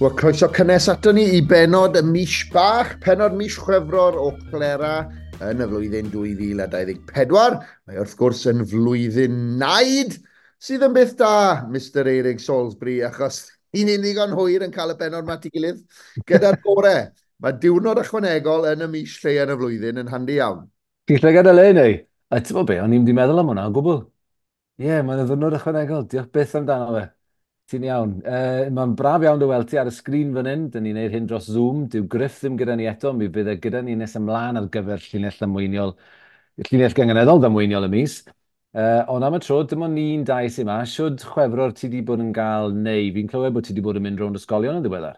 Wel, croeso cynnes ato ni i benod y mis bach, penod mis Chwefror o Clera yn y flwyddyn 2024. Mae wrth gwrs yn flwyddyn naid, sydd yn beth da, Mr Eirig Salisbury, achos ni'n ddigon hwyr yn cael y benod ma at ei gilydd gyda'r gore. Mae diwrnod ychwanegol yn y mis lle yn y flwyddyn yn handi iawn. Ti'n llygad y le neu? A ti'n bod be, o'n i'n di meddwl am hwnna o gwbl. Ie, yeah, mae'n ddiwrnod ychwanegol. Diolch byth amdano fe. Ti'n iawn. Mae'n braf iawn dy weld ti ar y sgrin fan hyn. Dyn ni'n neud hyn dros Zoom. Dyw Griff ddim gyda ni eto. Mi fydd e gyda ni nes ymlaen ar gyfer llinell ddamweiniol, llinell gynganeddol ddamweiniol y mis. Ond am y tro, dim ond ni'n dau sy'n ma. Shwd Chwefror ti di bod yn gael neu? Fi'n clywed bod ti di bod yn mynd rownd ysgolion yn ddiweddar.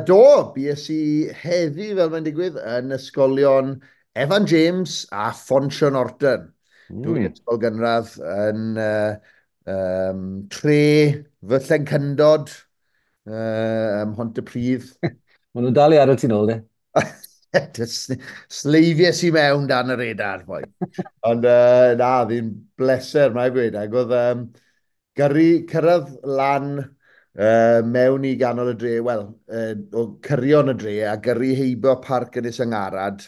Do, bues i heddi, fel mae'n digwydd, yn ysgolion Evan James a Ffonsion Norton. Dwy ysgol gynradd yn tre fy llencyndod ym Mhontypridd. Maen nhw'n dal i adael ti'n ôl, de? Sleifies i mewn dan y radar, boi. Ond na, fi'n bleser, mae'n gweud. Ac oedd gyrru, cyrraedd lan mewn i ganol y dre, wel, o cyrion y dre, a gyrru heibio Parc Ynys Yngarad,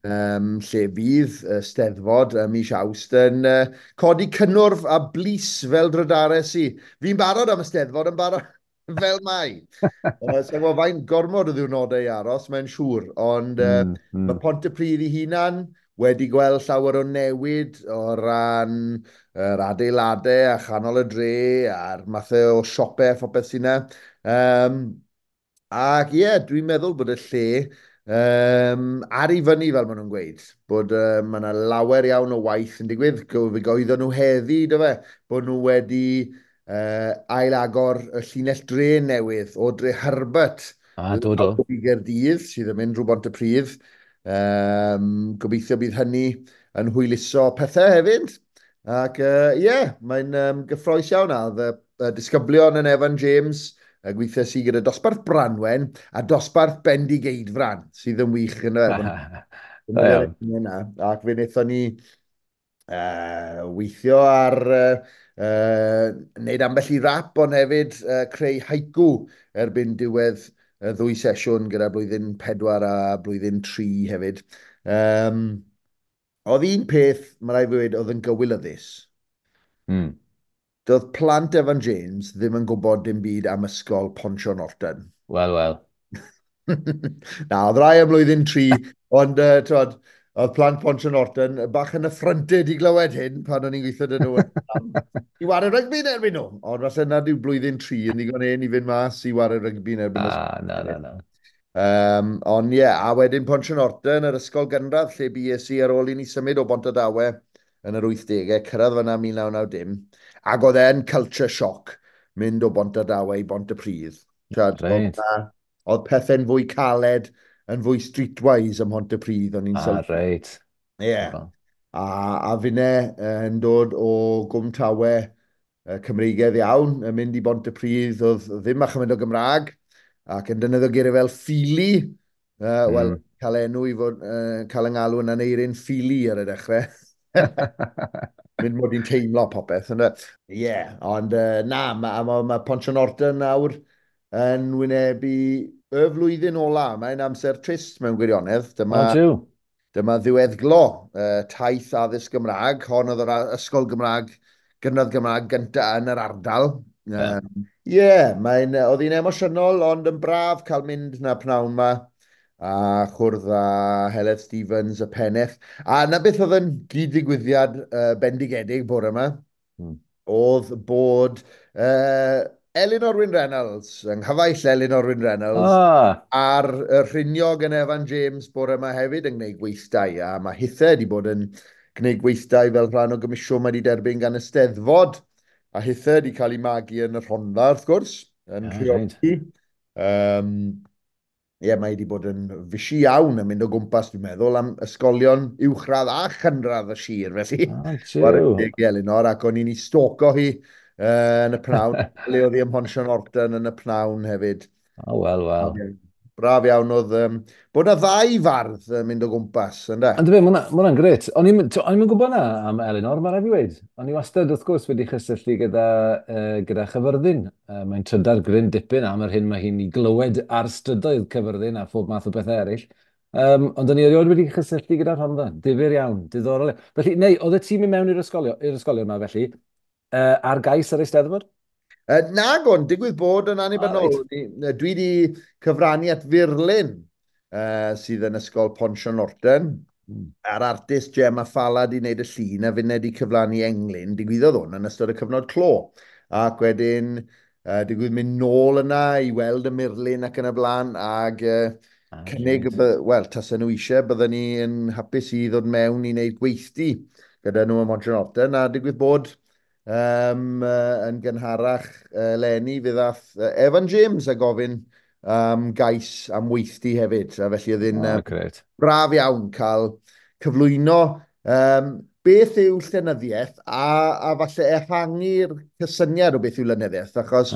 lle fydd y Steddfod ym mis Awst yn codi cynnwrf a blys fel drydares i. Fi'n barod am y Steddfod yn barod fel mai. Sa'n gwybod faint gormod o ddiwrnodau i aros, mae'n siŵr, ond mae Pontypridd ei hunan wedi gweld llawer o newid o ran yr adeiladau a chanol y dre a'r mathau o siopau a phopeth sy'n yna. Ac ie, dwi'n meddwl bod y lle ar ei fyny, fel maen nhw'n gweud, bod mae yna lawer iawn o waith yn digwydd. Fe goeddon nhw heddi, do fe, bod nhw wedi ailagor y llinell dren newydd o Dre Herbert Do, do. i Gaerdydd, sydd yn mynd drwy Bontypridd. Gobeithio bydd hynny yn hwyluso pethau hefyd. Ac ie, yeah, mae'n gyffrous iawn. A oedd y disgyblion yn Evan James, gweithio sydd gyda dosbarth Branwen a dosbarth Bendigeidfran, sydd yn wych yn y Da iawn. Ac fe wnaethon ni weithio ar wneud ambell i rap, ond hefyd creu haiku erbyn diwedd y ddwy sesiwn gyda blwyddyn 4 a blwyddyn 3 hefyd. Oedd un peth, mae rhaid fi weud, oedd yn gywilyddus. Doedd plant Evan James ddim yn gwybod dim byd am ysgol Ponsio Norton. Wel, wel. Na, oedd rai am blwyddyn 3, ond twod, oedd plant Ponsio Norton bach yn affronted i glywed hyn pan o'n i'n gweithio dyn nhw i wario rygbi yn erbyn nhw. Ond falle nad yw blwyddyn 3 yn ddigon hen i fynd mas i wario rygbi yn erbyn Ah, na, na, na. Ond ie, a wedyn Ponsio Norton, yr ysgol gynradd lle bues i ar ôl i ni symud o Bontardawe yn yr 80au, cyrraedd fyna 1990, ac oedd e'n culture shock mynd o Bontardawe i Bontypridd. T'wod, oedd pethau'n fwy caled, yn fwy streetwise ym Mhontypridd, o'n i'n sylwi. Ie. A finne yn dod o Gwm Tawe Cymreigaidd iawn, yn mynd i Bontypridd, oedd ddim a chymaint o Gymraeg, ac yn defnyddio geiriau fel ffili, wel, cael enw i fod, cael yng ngalw yn Aneirin Ffili ar y dechrau. Mynd mod i'n teimlo popeth, ynde? Ie, ond na, mae ma, ma Ponsio Norton nawr yn wynebu y flwyddyn ola. Mae'n amser trist mewn gwirionedd. Dyma, O, dyma ddiweddglo taith addysg Gymraeg. Hon oedd yr ysgol Gymraeg, gynradd Gymraeg gyntaf yn yr ardal. Ie, yeah, mae'n, oedd hi'n emosiynol, ond yn braf cael mynd na pnawn ma a chwrdd â Heledd Stevens, y pennaeth. A na beth oedd yn gyd-ddigwyddiad bendigedig bore yma, oedd bod Elinor Wyn Reynolds, yng nghyfaill Elinor Wyn Reynolds, ar y rhiniog yn Evan James bore yma hefyd yn gwneud gweithdai, a mae hithe wedi bod yn gwneud gweithdai fel rhan o gomisiwn mae wedi derbyn gan y Steddfod, a hithe wedi cael ei magu yn y Rhondda, wrth gwrs, yn Rheoli. Ie, mae wedi bod yn fisi iawn yn mynd o gwmpas, dwi'n meddwl, am ysgolion uwchradd a chynradd y sir, felly. Chwarae teg i Elinor, ac o'n i'n ei stalko hi yn y pnawn, le oedd hi ym Mhonsio Norton yn y pnawn hefyd. O, wel, wel. Braf iawn oedd bod 'na ddau fardd yn mynd o gwmpas, ynde? Ond fe, mae hwnna'n grêt. O'n i'm yn gwybod na am Elinor, mae rhaid fi weud. O'n i wastad, wrth gwrs, wedi chysylltu gyda Chyfyrddin. Mae'n trydar gryn dipyn am yr hyn mae hi'n ei glywed ar strydoedd Cyfyrddin a phob math o bethau eraill. Ond o'n i erioed wedi chysylltu gyda Rhondda. Difyr iawn, diddorol. Felly, neu, oedd y tîm i mewn i'r ysgolion yma, felly, ar gais yr Eisteddfod? Nag o'n, digwydd bod yn annibynnol. Dwi wedi cyfrannu at furlun sydd yn Ysgol Pont Norton. A'r artist Gemma Falla di wneud y llun a finne di cyflannu englyn. Digwyddodd hwn yn ystod y cyfnod clo. Ac wedyn digwydd mynd nôl yna i weld y murlun ac yn y blaen ac cynnig, wel, tasen nhw eisiau, bydden ni yn hapus i ddod mewn i wneud gweithdy gyda nhw ym Mhont Norton, a digwydd bod yn gynharach eleni fe ddath Evan James a gofyn gais am weithdy hefyd. A felly oedd hi'n braf iawn cael cyflwyno beth yw llenyddiaeth a falle ehangu'r cysyniad o beth yw lenyddiaeth, achos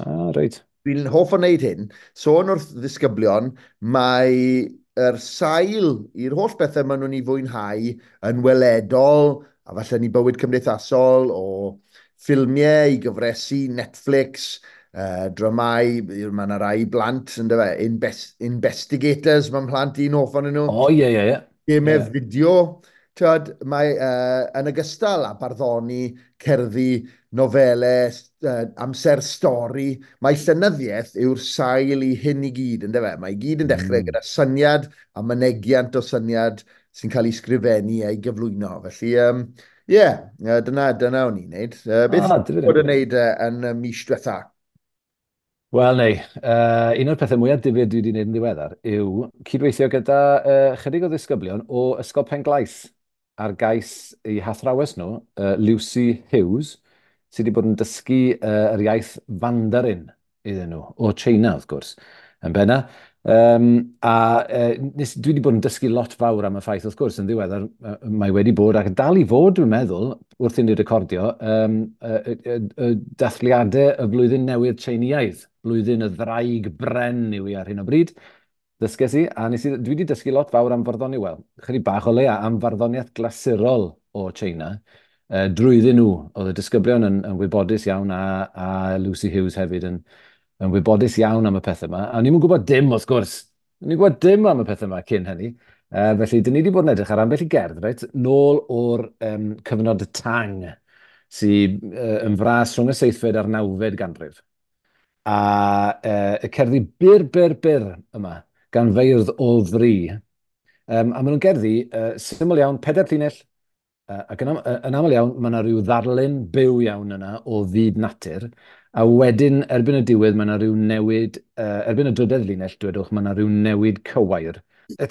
dwi'n hoff o wneud hyn. Sôn wrth ddisgyblion, mae yr sail i'r holl bethau maen nhw'n ei fwynhau yn weledol, a falle ni bywyd cymdeithasol, o ffilmiau i gyfresi, Netflix, dramau, mae yna rai blant, yndyfe, investigators, mae'n plant un hoff ohonyn nhw. O, ie, ie, ie. Gemau fideo, tyd, mae yn ogystal â barddoni, cerddi, nofelau, amser stori, mae llenyddiaeth yw'r sail i hyn i gyd, yndyfe? Mae i gyd yn dechrau gyda syniad a mynegiant o syniad sy'n cael ei sgrifennu a'i gyflwyno. Felly, dyna o'n i'n neud. Beth bod yn neud yn y mis diwetha? Wel, nei, un o'r pethau mwyaf difyr dwi wedi gwneud yn ddiweddar yw cydweithio gyda chydig o ddisgyblion o Ysgol Penglais ar gais eu hathrawes nhw, Lucy Hughes, sydd wedi bod yn dysgu yr iaith Mandarin iddyn nhw, o China, wrth gwrs, yn benna. Dwi wedi bod yn dysgu lot fawr am y ffaith, wrth gwrs, yn ddiweddar, mae wedi bod, ac dal i fod, dwi'n meddwl, wrth i ni recordio, dathliadau y flwyddyn newydd Tsieineaidd, blwyddyn y ddraig bren yw hi ar hyn o bryd. Dysges i, a dwi wedi dysgu lot fawr am farddoniaeth, wel, chydig bach o leia, am farddoniaeth glasurol o China, drwyddyn nhw. Oedd y disgyblion yn wybodus iawn, a Lucy Hughes hefyd yn wybodus iawn am y pethau yma. A ni'n gwybod dim, wrth gwrs. Ni'n gwybod dim am y pethau yma cyn hynny. Felly, dyn ni wedi bod yn edrych ar ambell i gerdd, reit, nôl o'r cyfnod Tang, sydd yn fras rhwng y 7fed a'r 9fed ganrif. A y cerddi byr, byr, byr yma, gan feirdd o fri. A maen nhw'n gerddi syml iawn, 4 llinell, ac yn aml iawn, mae yna rhyw ddarlun byw iawn yna o fyd natur, a wedyn, erbyn y diwedd, mae yna rhyw newid, erbyn y drydedd linell, dwedwch, mae yna rhyw newid cywair.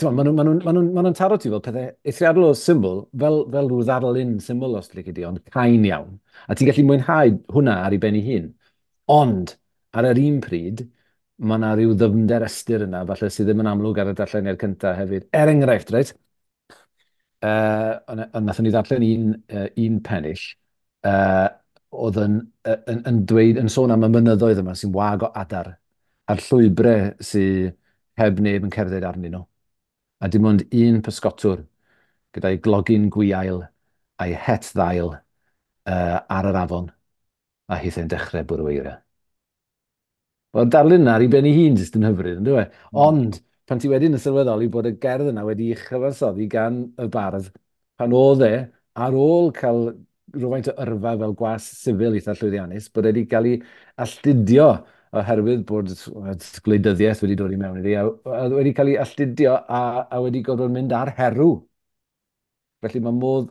Maen nhw'n taro ti fel pethau eithriadol o syml, fel rhyw ddarlun syml os lici di, ond cain iawn. A ti'n gallu mwynhau hwnna ar ei ben ei hun. Ond, ar yr un pryd, mae yna rhyw ddyfnder ystyr yna, falle sydd ddim yn amlwg ar y darlleniad cyntaf hefyd. Er enghraifft, reit? Nathon ni ddarllen un pennill oedd yn dweud, yn sôn am y mynyddoedd yma sy'n wag o adar a'r llwybrau sydd heb neb yn cerdded arnyn nhw. A dim ond un pysgotwr gyda'i glogyn gwiail a'i het ddail ar yr afon, a hithau'n dechrau bwrw eira. Wel, darlun yna ar ei ben ei hun jyst yn hyfryd, yn dyw e? Ond, pan ti wedyn yn sylweddoli bod y gerdd yna wedi'i chyfansoddi gan y bardd, pan oedd e, ar ôl cael rhywfaint o yrfa fel gwas sifil eitha llwyddiannus, bod e wedi cael ei alltudio oherwydd bod gwleidyddiaeth wedi dod i mewn iddi, a wedi cael ei alltudio a wedi gorfod mynd ar herw. Felly mae modd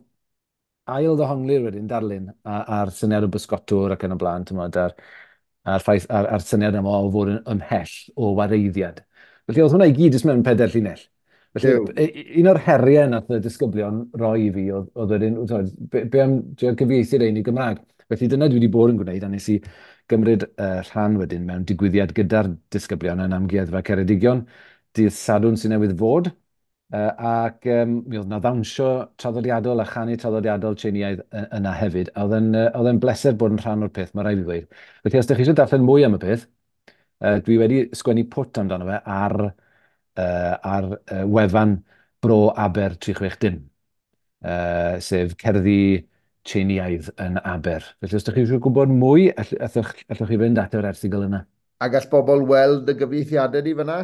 ail ddehongli'r wedyn darlun a'r syniad o bysgotwr ac yn y blaen, t'mod, a'r ffaith, a'r syniad yma o fod yn ymhell o wareiddiad. Felly oedd hwnna i gyd jyst mewn 4 llinell. Felly, un o'r heriau nath y disgyblion roi i fi oedd wedyn, be am drio cyfieithu'r ein i Gymraeg? Felly dyna dwi wedi bod yn gwneud, a nes i gymryd rhan wedyn mewn digwyddiad gyda'r disgyblion yn Amgueddfa Ceredigion, dydd Sadwrn sy'n newydd fod, ac mi oedd 'na ddawnsio traddodiadol a chanu traddodiadol Tsieineaidd yna hefyd, a oedd e'n bleser bod yn rhan o'r peth, mae rhaid i fi ddweud. Felly os ydych chi eisiau darllen mwy am y peth, dwi wedi sgwennu pwt amdano fe ar ar wefan Bro Aber 360, sef cerddi Tsieineaidd yn Aber. Felly os ydych chi eisiau gwybod mwy, allwch chi fynd at yr erthygl yna. A gall bobl weld y gyfieithiadau di fyna?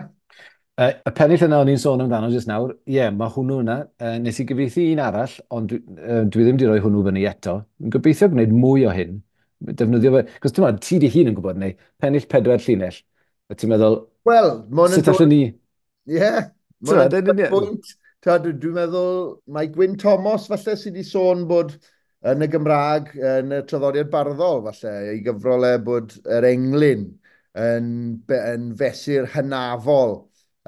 Y pennill yna o'n i'n sôn amdano jyst nawr, ie, yeah, mae hwnnw yna. Nes i gyfieithu un arall, ond dwi ddim wedi rhoi hwnnw fyny eto. Dwi'n gobeithio gwneud mwy o hyn. Defnyddio fe, cos ti'n meddwl, ti di hun yn gwybod neu, pennill 4 llinell, a ti'n meddwl, well, sut allwn ni? Ie, mae'n pwynt. Dwi'n meddwl, mae Gwyn Thomas falle sydd wedi sôn bod yn y Gymraeg, yn y traddodiad barddol falle, ei gyfrol e bod yr englyn yn fesur hynafol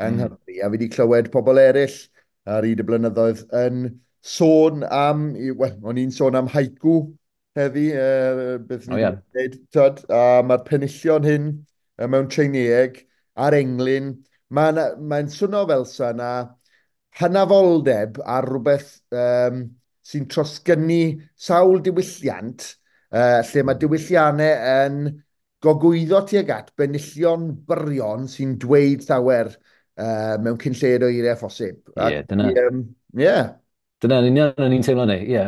yng Nghymru. A fi wedi clywed pobl eraill ar hyd y blynyddoedd yn sôn am, wel, o'n i'n sôn am haiku heddi, beth ni'n gwneud, tyd, a mae'r penillion hyn mewn Tsieineeg a'r englyn, mae'n swno fel sa na hynafoldeb ar rhywbeth sy'n trosgynnu sawl diwylliant, lle mae diwylliannau yn gogwyddo tuag at benillion byrion sy'n dweud llawer mewn cyn lleied o eiriau phosib. Ie, dyna. Ie. Dyna yn union o'n i'n teimlo neu. Ie,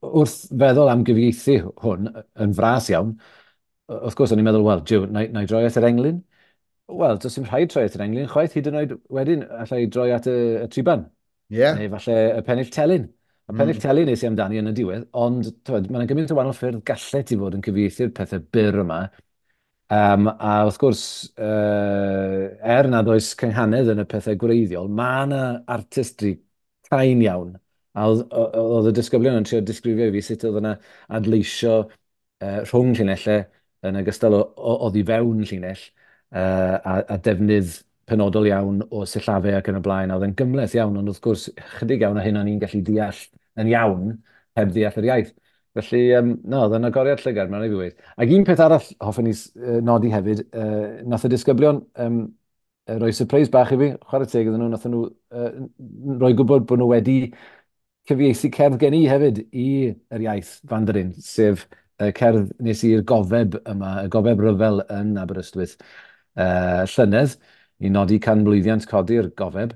wrth feddwl am gyfieithu hwn yn fras iawn, wrth gwrs o'n i'n meddwl, wel, jiw, na i droi at yr englyn? Wel, does dim rhaid troi at yr englyn chwaith, hyd yn oed wedyn allai droi at y triban. Yeah. Neu falle y pennill telyn. Y pennill telyn nes i amdani yn y diwedd, ond mae yna gymaint o wahanol ffyrdd gallet ti fod yn cyfieithu'r pethau byr yma. A wrth gwrs, er nad oes cynghanedd yn y pethau gwreiddiol, mae yna artistry cain iawn. A oedd y disgyblion yn trio disgrifio i fi sut oedd yna adleisio rhwng llinellau yn ogystal oddi fewn llinell, a defnydd penodol iawn o sillafau ac yn y blaen, a oedd yn gymhleth iawn, ond wrth gwrs, chydig iawn o hyn o'n i'n gallu deall yn iawn heb ddeall yr iaith. Felly, no, oedd yn agoriad llygad, mae'n rhaid i fi weud. Ac un peth arall hoffwn i nodi hefyd, nath y disgyblion roi surprise bach i fi, chwarae teg iddyn nhw, nath nhw roi gwybod bod nhw wedi cyfieithu cerdd gen i hefyd i yr iaith Mandarin, sef cerdd nes i'r gofeb yma, y gofeb ryfel yn Aberystwyth llynedd, i nodi canmlwyddiant codi'r gofeb.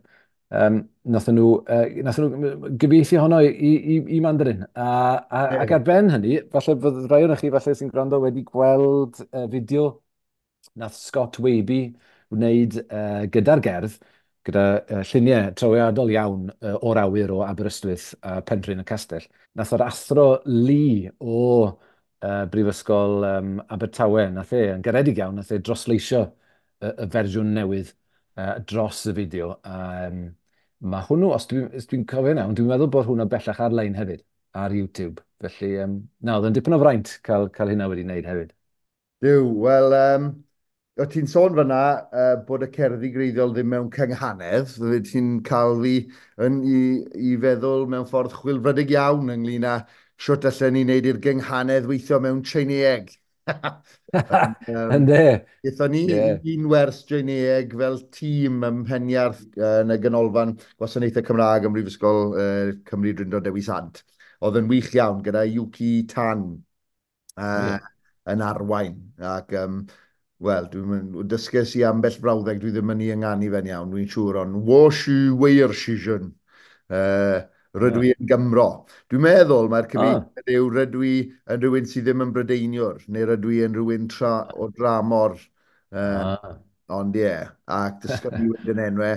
Nath nhw gyfieithu honno i Mandarin. Ac ar ben hynny, falle fydd rhai ohonoch chi falle sy'n gwrando wedi gweld fideo nath Scott Waby wneud gyda'r gerdd, gyda lluniau trawiadol iawn o'r awyr o Aberystwyth a Penrhyn y Castell. Nath yr athro Lee o Brifysgol Abertawe, nath e, yn garedig iawn, nath e drosleisio y fersiwn newydd dros y fideo. Mae hwnnw, os dwi'n cofio iawn, dwi'n meddwl bod hwnnw bellach ar-lein hefyd, ar YouTube. Felly, na, oedd yn dipyn o fraint cael hynna wedi wneud hefyd. Duw, wel, o ti'n sôn fyna bod y cerddi gwreiddiol ddim mewn cynghanedd, ti'n cael fi i feddwl mewn ffordd chwilfrydig iawn ynglyn â shwt allen ni wneud i'r gynghanedd weithio mewn Tsieineeg. Ynde? Gaethon ni un wers Tsieineeg fel tîm ym Mheniarth yn y Ganolfan Gwasanaethau Cymraeg ym Mhrifysgol Cymru Drindod Dewi Sant. Oedd yn wych iawn gyda Yuki Tan yn arwain. Ac, wel, dwi'n dysges i ambell frawddeg, dwi ddim yn ei ynganu fe'n iawn, dwi'n siŵr, ond wo shu weir shijun. Rydw i yn Gymro. Dwi'n meddwl mae'r cyfieithiad yw rydw i yn rhywun sydd ddim yn Brydeiniwr, neu rydw i yn rhywun o dramor. Ond ie, ac dysgodd ni wedyn enwau.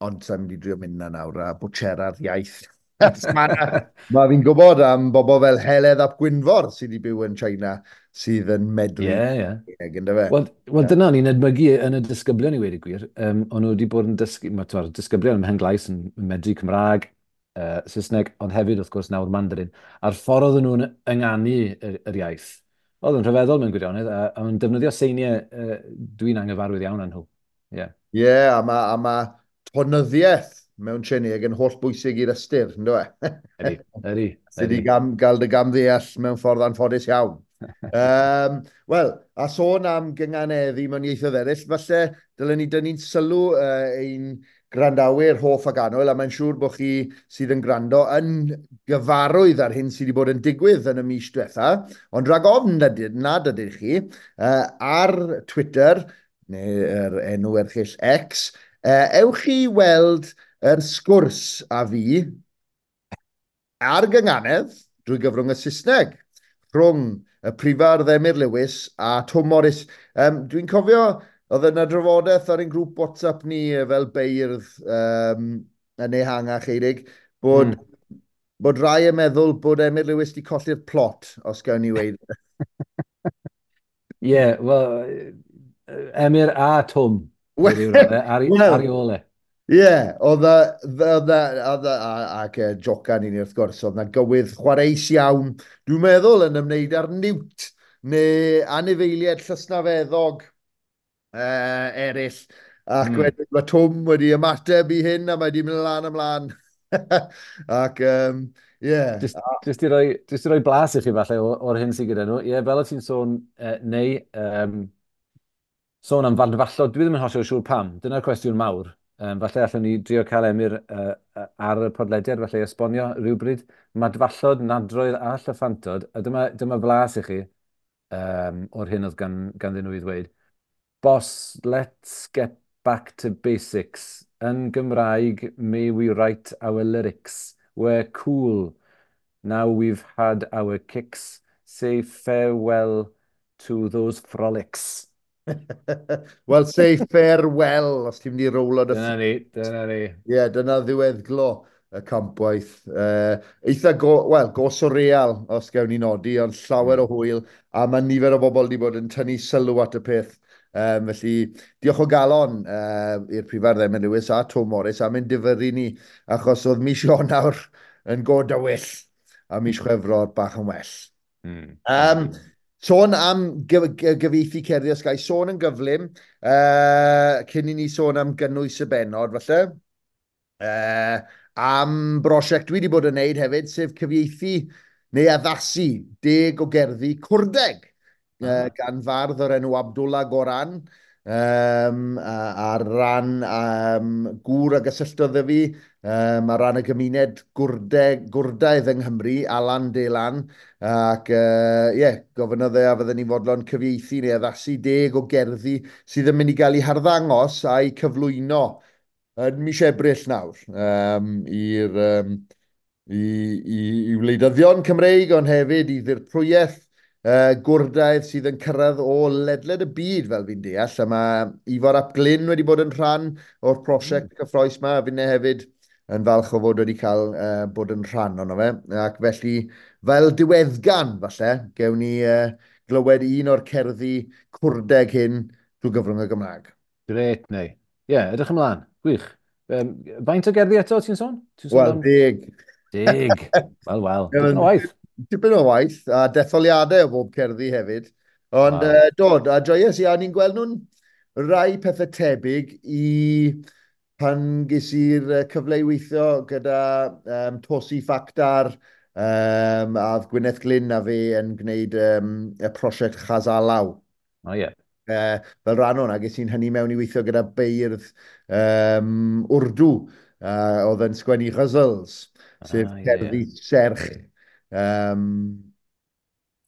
Ond sa'n mynd i drio mynd na nawr a bwtsera'r iaith. Mae fi'n gwybod am bobl fel Heledd ap Gwynfor sydd wedi byw yn China sydd yn medru. Ie. Yndyfe? Wel, dyna o'n i'n edmygu yn y disgyblion i weud y gwir. O'n nhw wedi bod yn dysgu, mae'r disgyblion ym Mhenglais yn medru Cymraeg, Saesneg, ond hefyd wrth gwrs nawr Mandarin. A'r ffordd oedden nhw'n ynganu yr iaith, oedd yn rhyfeddol mewn gwirionedd, a o'n defnyddio seiniau dwi'n anghyfarwydd iawn â nhw. Ie, a mae tonyddiaeth mewn Tsieineeg yn holl bwysig i'r ystyr, ynddo e? Ydy. Sydd wedi gael dy gamddeall mewn ffordd anffodus iawn. Wel, a sôn am gynganeddu mewn ieithoedd eraill, falle dylen ni dynnu'n sylw ein gwrandawyr hoff ac annwyl, a mae'n siŵr bod chi sydd yn gwrando yn gyfarwydd ar hyn sydd wedi bod yn digwydd yn y mis diwetha, ond rhag ofn nad ydych chi, ar Twitter, Neu'r enw erchyll X, ewch i weld yr sgwrs a fi ar gynganedd drwy gyfrwng y Saesneg rhwng y prifardd Emyr Lewis a Twm Morys. Dwi'n cofio, oedd yna drafodaeth ar ein grŵp WhatsApp ni fel beirdd yn ehangach, Eirig, bod, bod rai yn meddwl bod Emyr Lewis wedi colli'r plot, os gawn ni weud. Ie, yeah, wel, Emyr a Twm, ar ei ôl e. Ie, oedd ac jocan i ni wrth gwrs, oedd na gywydd chwareus iawn, dwi'n meddwl yn ymwneud â'r niwt neu anifeiliaid llysnafeddog eraill. Ac wedyn mae Twm wedi ymateb i hyn a mae wedi mynd lan ymlaen. Ac, ie. Yeah. Just i roi blas i chi falle o'r hyn sydd gyda nhw. Ie, yeah, fel o ti'n sôn, neu sôn am fadfallod, dwi ddim yn hollol siŵr pam. Dyna'r cwestiwn mawr. Falle allwn ni drio cael Emyr ar y podlediad, falle esbonio rhywbryd. Madfallod, nadroedd a llyffantod. A dyma flas i chi o'r hyn oedd ganddyn nhw i ddweud. "Boss, let's get back to basics. Yn Gymraeg, may we write our lyrics. We're cool. Now we've had our kicks. Say farewell to those frolics." Well, say farewell, os ti'n mynd i rowlo dy Dyna ni, dyna ni. Ie, yeah, dyna ddiweddglo y campwaith. Eitha, wel, go surreal, os gawn ni nodi, ond llawer o hwyl, a mae nifer o bobl wedi bod yn tynnu sylw at y peth. Felly, diolch o galon i'r prifardd Emyr Lewis a Twm Morys am ein difyrru ni, achos oedd mis Ionawr yn go dywyll, a mis Chwefror bach yn well. Sôn am gyfieithu cerddi os gai, sôn yn gyflym, cyn i ni sôn am gynnwys y bennod, falle, am brosiect dwi wedi bod yn neud hefyd, sef cyfieithu neu addasu 10 o gerddi Cwrdeg gan fardd o'r enw Abdullah Goran, ar ran gŵr a gysylltodd â fi, ar ran y gymuned Gwrdaidd yng Nghymru, Alan Delan, ac yeah, gofynnodd e a fydden ni'n fodlon cyfieithu neu addasu 10 o gerddi sydd yn mynd i gael eu harddangos a'u cyflwyno yn mis Ebrill nawr i'r i wleidyddion Cymreig, ond hefyd i ddirprwyaeth Gwrdaidd sydd yn cyrraedd o ledled y byd, fel fi'n deall. A mae Ifor ap Glyn wedi bod yn rhan o'r prosiect cyffrous yma, a finne hefyd yn falch o fod wedi cael bod yn rhan ono fe. Ac felly, fel diweddgan, falle, gewn ni glywed un o'r cerddi Cwrdeg hyn drwy gyfrwng y Gymraeg. Grêt, neu. Ie, yeah, edrych ymlaen. Gwych. Faint o gerddi eto, ti'n sôn? Ti'n sôn Wel, 10. 10. Wel, wel. Dipyn o waith. Dipyn o waith, a detholiadau o bob cerddi hefyd. Ond dod, a joies i, a ni'n gweld nhw'n rai pethau tebyg i pan ges i'r cyfle i weithio gyda Tosi Factar, a oedd Gwyneth Glyn a fi yn gwneud y prosiect Chazalaw. O, ie. Fel rhan o'na, ges i'n hynny mewn i weithio gyda beirdd Wrdw, oedd yn sgwennu ghazals, sef cerddi serch.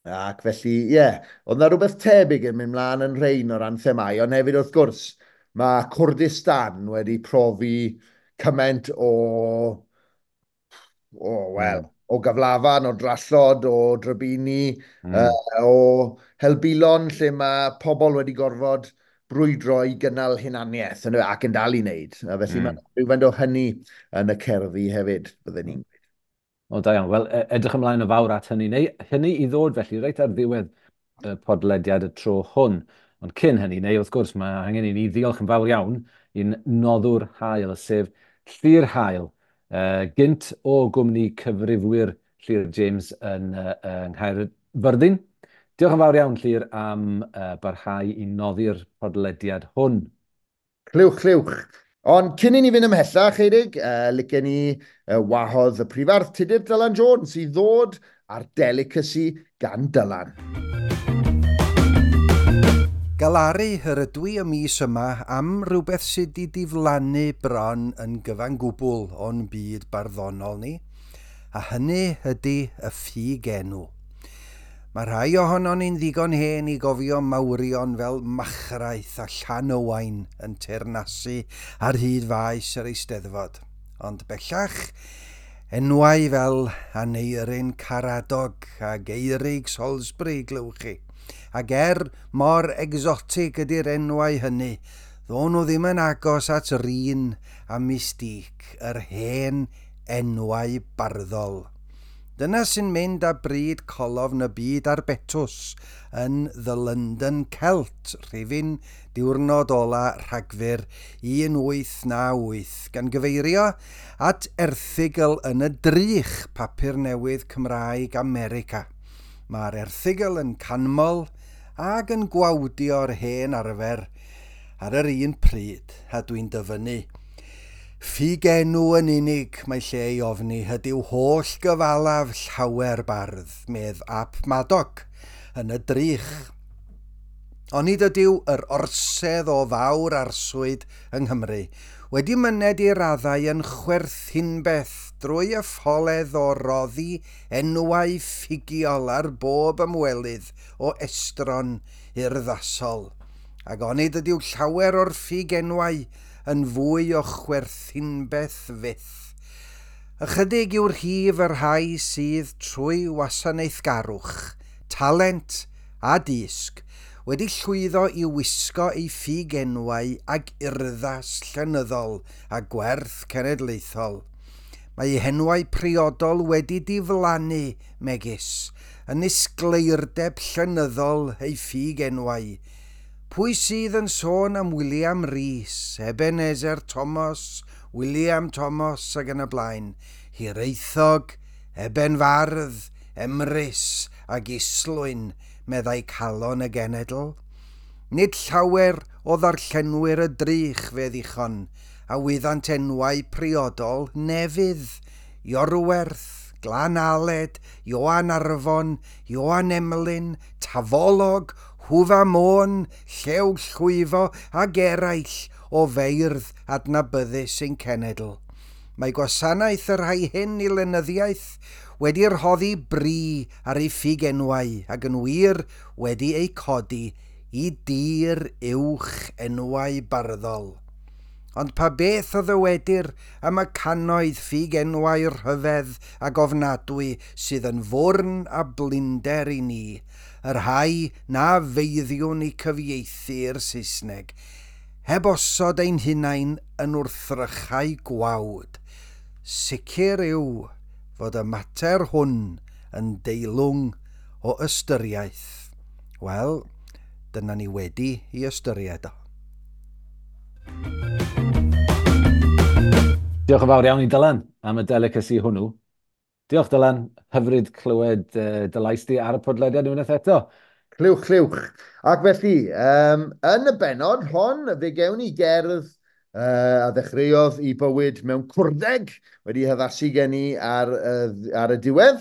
Ac felly, ie, yeah, oedd na rhywbeth tebyg yn mynd mlaen yn rhain o ran themau, ond hefyd wrth gwrs, mae Kurdistan wedi profi cymaint o, wel, o gyflafan, o drallod, o drybini, o helbulon lle mae pobl wedi gorfod brwydro i gynnal hunaniaeth ac yn dal i wneud. A felly mae rhywfaint o hynny yn y cerddi hefyd, bydden ni'n gweud. O, da iawn. Wel, edrych ymlaen o fawr at hynny. Neu hynny i ddod felly, reit ar ddiwedd y podlediad y tro hwn. Ond cyn hynny, neu wrth gwrs, mae angen i ni ddiolch yn fawr iawn i'n noddwr hael, sef Llyr Hael, gynt o gwmni cyfrifwyr Llyr James yn Nghaerfyrddin. Diolch yn fawr iawn, Llyr, am barhau i noddi'r podlediad hwn. Clywch, clywch. Ond cyn i ni fynd ymhellach, Eirig, licen ni wahodd y prifardd Tudur Dylan Jones i ddod ar Delicacy gan Dylan. Galaru yr ydw i y mis yma am rhywbeth sydd wedi diflannu bron yn gyfan gwbl o'n byd barddonol ni, a hynny ydy y ffug enw. Mae rhai ohonon ni'n ddigon hen i gofio mawrion fel Machraeth a Llan Owain yn teyrnasu ar hyd faes yr Eisteddfod. Ond bellach, enwau fel Aneirin Karadog a Geirig Salisbury glywch chi. Ac er mor egsotig ydy'r enwau hynny, ddo'n nhw ddim yn agos at rin a mystique yr hen enwau barddol. Dyna sy'n mynd â bryd colofn y byd ar betws yn The London Celt, rhifyn diwrnod ola Rhagfyr 1898, gan gyfeirio at erthygl yn y Drych, papur newydd Cymraeg America. Mae'r erthygl yn canmol ac yn gwawdio'r hen arfer ar yr un pryd, a dwi'n dyfynnu. Ffugenw yn unig mae lle i ofni ydyw holl gyfalaf llawer bardd, medd Ap Madog, yn y Drych. Onid ydyw yr orsedd o fawr arswyd yng Nghymru wedi myned i raddau yn chwerthinbeth drwy y ffoledd o roddi enwau ffugiol ar bob ymwelydd o estron urddasol. Ac onid ydyw llawer o'r ffugenwau yn fwy o chwerthinbeth fyth. Ychydig yw'r rhif y rhai sydd trwy wasanaethgarwch, talent a dysg wedi llwyddo i wisgo eu ffugenwau ag urddas llenyddol a gwerth cenedlaethol. Mae eu henwau priodol wedi diflannu, megis, yn isgleirdeb llenyddol eu ffugenwau. Pwy sydd yn sôn am William Rees, Ebenezer Thomas, William Thomas ac yn y blaen, Hiraethog, Eben Fardd, Emrys ac Islwyn, meddai calon y genedl. Nid llawer o ddarllenwyr y Drych fe ddichon, a wyddant enwau priodol Nefydd, Iorwerth, Glan Aled, Ioan Arfon, Ioan Emlyn, Tafolog, Hwfa Môn, Llew Llwyfo ac eraill o feirdd adnabyddus ein cenedl. Mae gwasanaeth y rhai hyn i lenyddiaeth wedi rhoddi bri ar ei ffugenwau ac yn wir wedi eu codi i dir uwch enwau barddol. Ond pa beth o ddywedir am y cannoedd ffugenwau rhyfedd ac ofnadwy sydd yn fwrn a blinder i ni, y rhai na feiddiwn i cyfieithu i'r Saesneg, heb osod ein hunain yn wrthrychau gwawd. Sicr yw fod y mater hwn yn deilwng o ystyriaeth. Wel, dyna ni wedi i ystyried o. Diolch yn fawr iawn i Dylan am y delicacy hwnnw. Diolch Dylan, hyfryd clywed dy lais di ar y podlediad unwaith eto. Clywch, clywch. Ac felly, yn y bennod hon, fe gewn ni gerdd a ddechreuodd i bywyd mewn cwrdeg, wedi haddasu gen i ar y diwedd.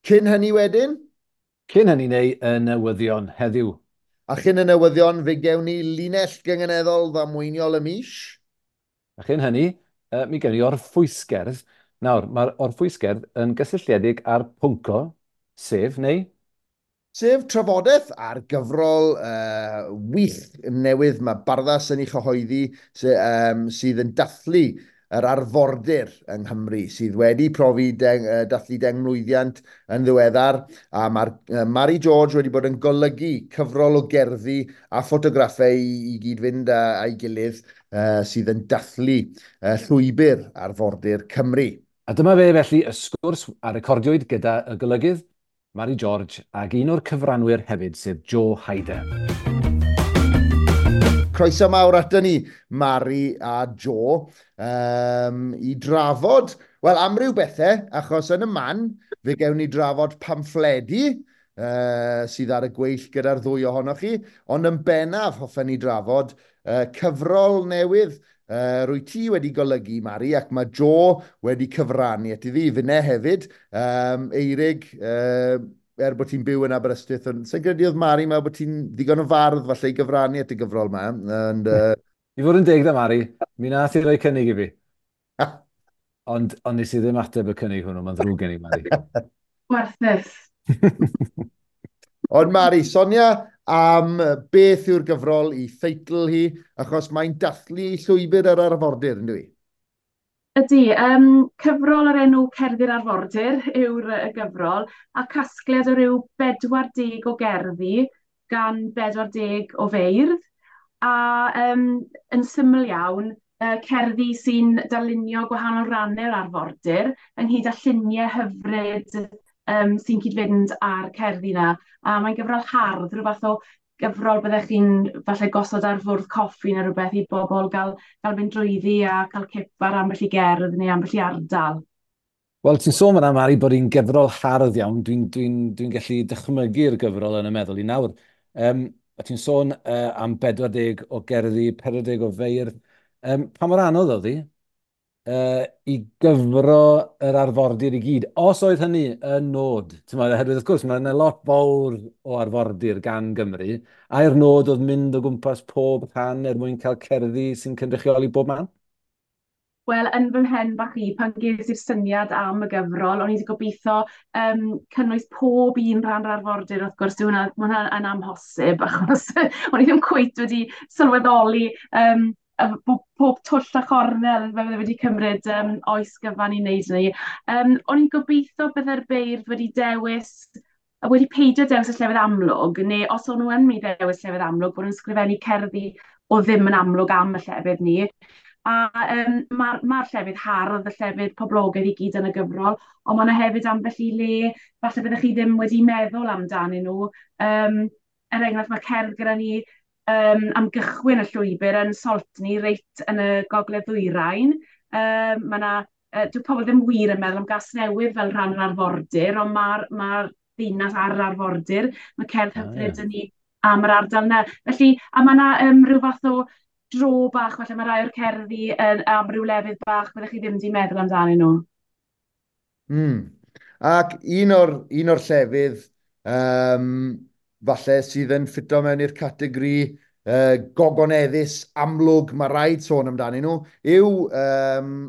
Cyn hynny wedyn? Cyn hynny neu y newyddion heddiw. A chyn y newyddion, fe gewn ni linell gynganeddol ddamweiniol y mis. A chyn hynny, mi gewn ni orffwysgerdd. Nawr, mae'r orffwysgerdd yn gysylltiedig â'r pwnco, sef, neu? Sef trafodaeth ar gyfrol wych newydd mae Barddas yn ei chyhoeddi sydd yn dathlu yr arfordir yng Nghymru, sydd wedi profi dathlu 10 mlwyddiant yn ddiweddar, a mae'r Mari George wedi bod yn golygu cyfrol o gerddi a ffotograffau i gyd-fynd â'i gilydd sydd yn dathlu llwybr arfordir Cymru. A dyma fe felly y sgwrs a recordiwyd gyda y golygydd Mari George ac un o'r cyfranwyr hefyd, sef Joe Hyder. Croeso mawr ato ni, Mari a Joe, i drafod, wel, amryw bethau, achos yn y man, fe gewn ni drafod pamffledi sydd ar y gweill gyda'r ddwy ohonoch chi, ond yn bennaf hoffen ni drafod cyfrol newydd rwy ti wedi golygu, Mari, ac mae Joe wedi cyfrannu at iddi, finne hefyd, Eirig, er bod ti'n byw yn Aberystwyth, ond sa'n credu oedd Mari mewn bod ti'n ddigon o fardd falle i gyfrannu at y gyfrol yma. And, I fod yn deg da, Mari, mi nath i roi cynnig i fi. Ond nes i ddim ateb y cynnig hwnnw, mae'n ddrwg gen i, Mari. Gwarthus. Ond Mari, sonia am beth yw'r gyfrol i theitl hi, achos mae'n dathlu llwybr yr arfordir, yn dwi? Ydy, cyfrol o'r enw Cerddi'r Arfordir yw'r y gyfrol, a casgliad o ryw 40 o gerddi gan 40 o feirdd, a yn syml iawn, cerddi sy'n darlunio gwahanol rannau'r arfordir, ynghyd â lluniau hyfryd sy'n cyd-fynd â'r cerddi 'na. A mae'n gyfrol hardd, rhyw fath o gyfrol byddech chi'n falle gosod ar fwrdd coffi neu rhywbeth i bobl gael mynd drwyddi a cael cip ar ambell i gerdd neu ambell i ardal. Wel, ti'n sôn fan'na, Mari, bod hi'n gyfrol hardd iawn. Dwi'n gallu dychmygu'r gyfrol yn y meddwl i nawr. A ti'n sôn am 40 o gerddi, 40 o feirdd. Pa mor anodd oedd hi i gyfro yr arfordir i gyd? Os oedd hynny yn nod, ti'n oherwydd wrth gwrs mae yna lot fawr o arfordir gan Gymru, ai'r nod oedd mynd o gwmpas pob rhan er mwyn cael cerddi sy'n cynrychioli bob man? Wel, yn fy mhen bach i, pan ges i'r syniad am y gyfrol, o'n i wedi gobeithio cynnwys pob un rhan o'r arfordir, wrth gwrs, dyw hwnna, ma' hwnna yn amhosib, achos o'n i ddim cweit wedi sylweddoli pob twll a chornel fe fydde wedi cymryd oes gyfan i wneud hynny. O'n i'n gobeithio bydde'r beirdd wedi dewis, wedi peidio dewis y llefydd amlwg, neu os o'n nhw yn mynd i ddewis llefydd amlwg, bod nhw'n sgrifennu cerddi o ddim yn amlwg am y llefydd ni. A ma llefydd hardd, y llefydd poblogaidd i gyd yn y gyfrol, ond mae yna hefyd ambell i le, falle byddech chi ddim wedi meddwl amdanyn nhw. Er enghraifft, mae cerdd gyda ni am gychwyn y llwybr yn Saltney, reit yn y gogledd ddwyrain. Mae yna, dyw pobl ddim wir yn meddwl am Gasnewydd fel rhan o'r arfordir, ond ma ddinas ar yr arfordir. Mae cerdd hyfryd yn ni am yr ardal yna. Felly, a mae yna rhyw fath o dro bach, falle mae rai o'r cerddi yn, am ryw lefydd bach byddech chi ddim wedi meddwl amdanyn nhw. Ac un o'r llefydd falle sydd yn ffito mewn i'r categori gogoneddus amlwg, mae rhaid sôn amdanyn nhw, yw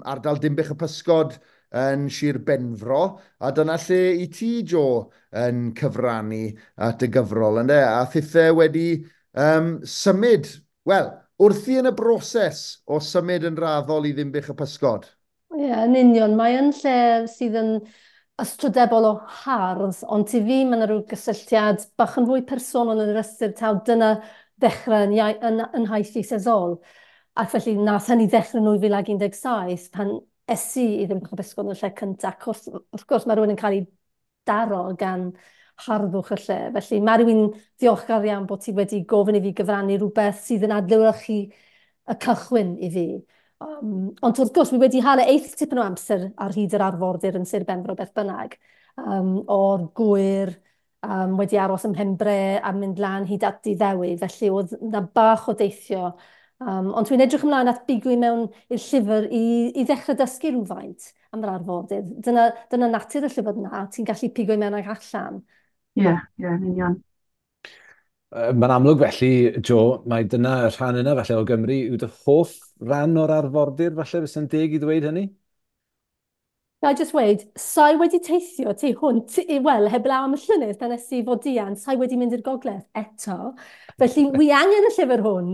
ardal Dinbych y Pysgod yn Sir Benfro, a dyna lle i ti, Joe, yn cyfrannu at y gyfrol, ynde? A thithe wedi symud, wel, wrthi yn y broses o symud yn raddol i Ddinbych y Pysgod. Ie, yeah, yn union. Mae yn lle sydd yn ystrydebol o hardd, ond i fi mae yna rhyw gysylltiad bach yn fwy personol yn yr ystyr taw dyna ddechrau yn nhaith ieithyddol. Ac felly nath hynny ddechrau yn 2017 pan es i i Ddinbych y Pysgod yn y lle cyntaf. Ac wrth gwrs mae rhywun yn cael ei daro gan harddwch y lle. Felly mae rhywun diolchgar iawn bod ti wedi gofyn i fi gyfrannu rhywbeth sydd yn adlewyrchu y cychwyn i fi. Ond wrth gwrs, wi wedi hala eith tipyn o amser ar hyd yr arfordir yn Sir Benfro beth bynnag. O'r Gwyr, wedi aros ym Mhenbre a mynd lan hyd at Diddewi. Felly oedd na bach o deithio. Ond dwi'n edrych ymlaen at bigo i mewn i'r llyfr i ddechrau dysgu rhywfaint am yr arfordir. Dyna natur y llyfr yna, ti'n gallu pigo i mewn ag allan. Ie, yn union. Mae'n amlwg felly, Joe, mae dyna y rhan yna falle o Gymru yw dy hoff ran o'r arfordir, falle fysa'n deg i ddweud hynny? Na i just weud, sa'i wedi teithio tu hwnt, wel, heblaw am y llynedd pan es i Fodian, sa'i wedi mynd i'r gogledd eto. Felly, wi angen y llyfr hwn,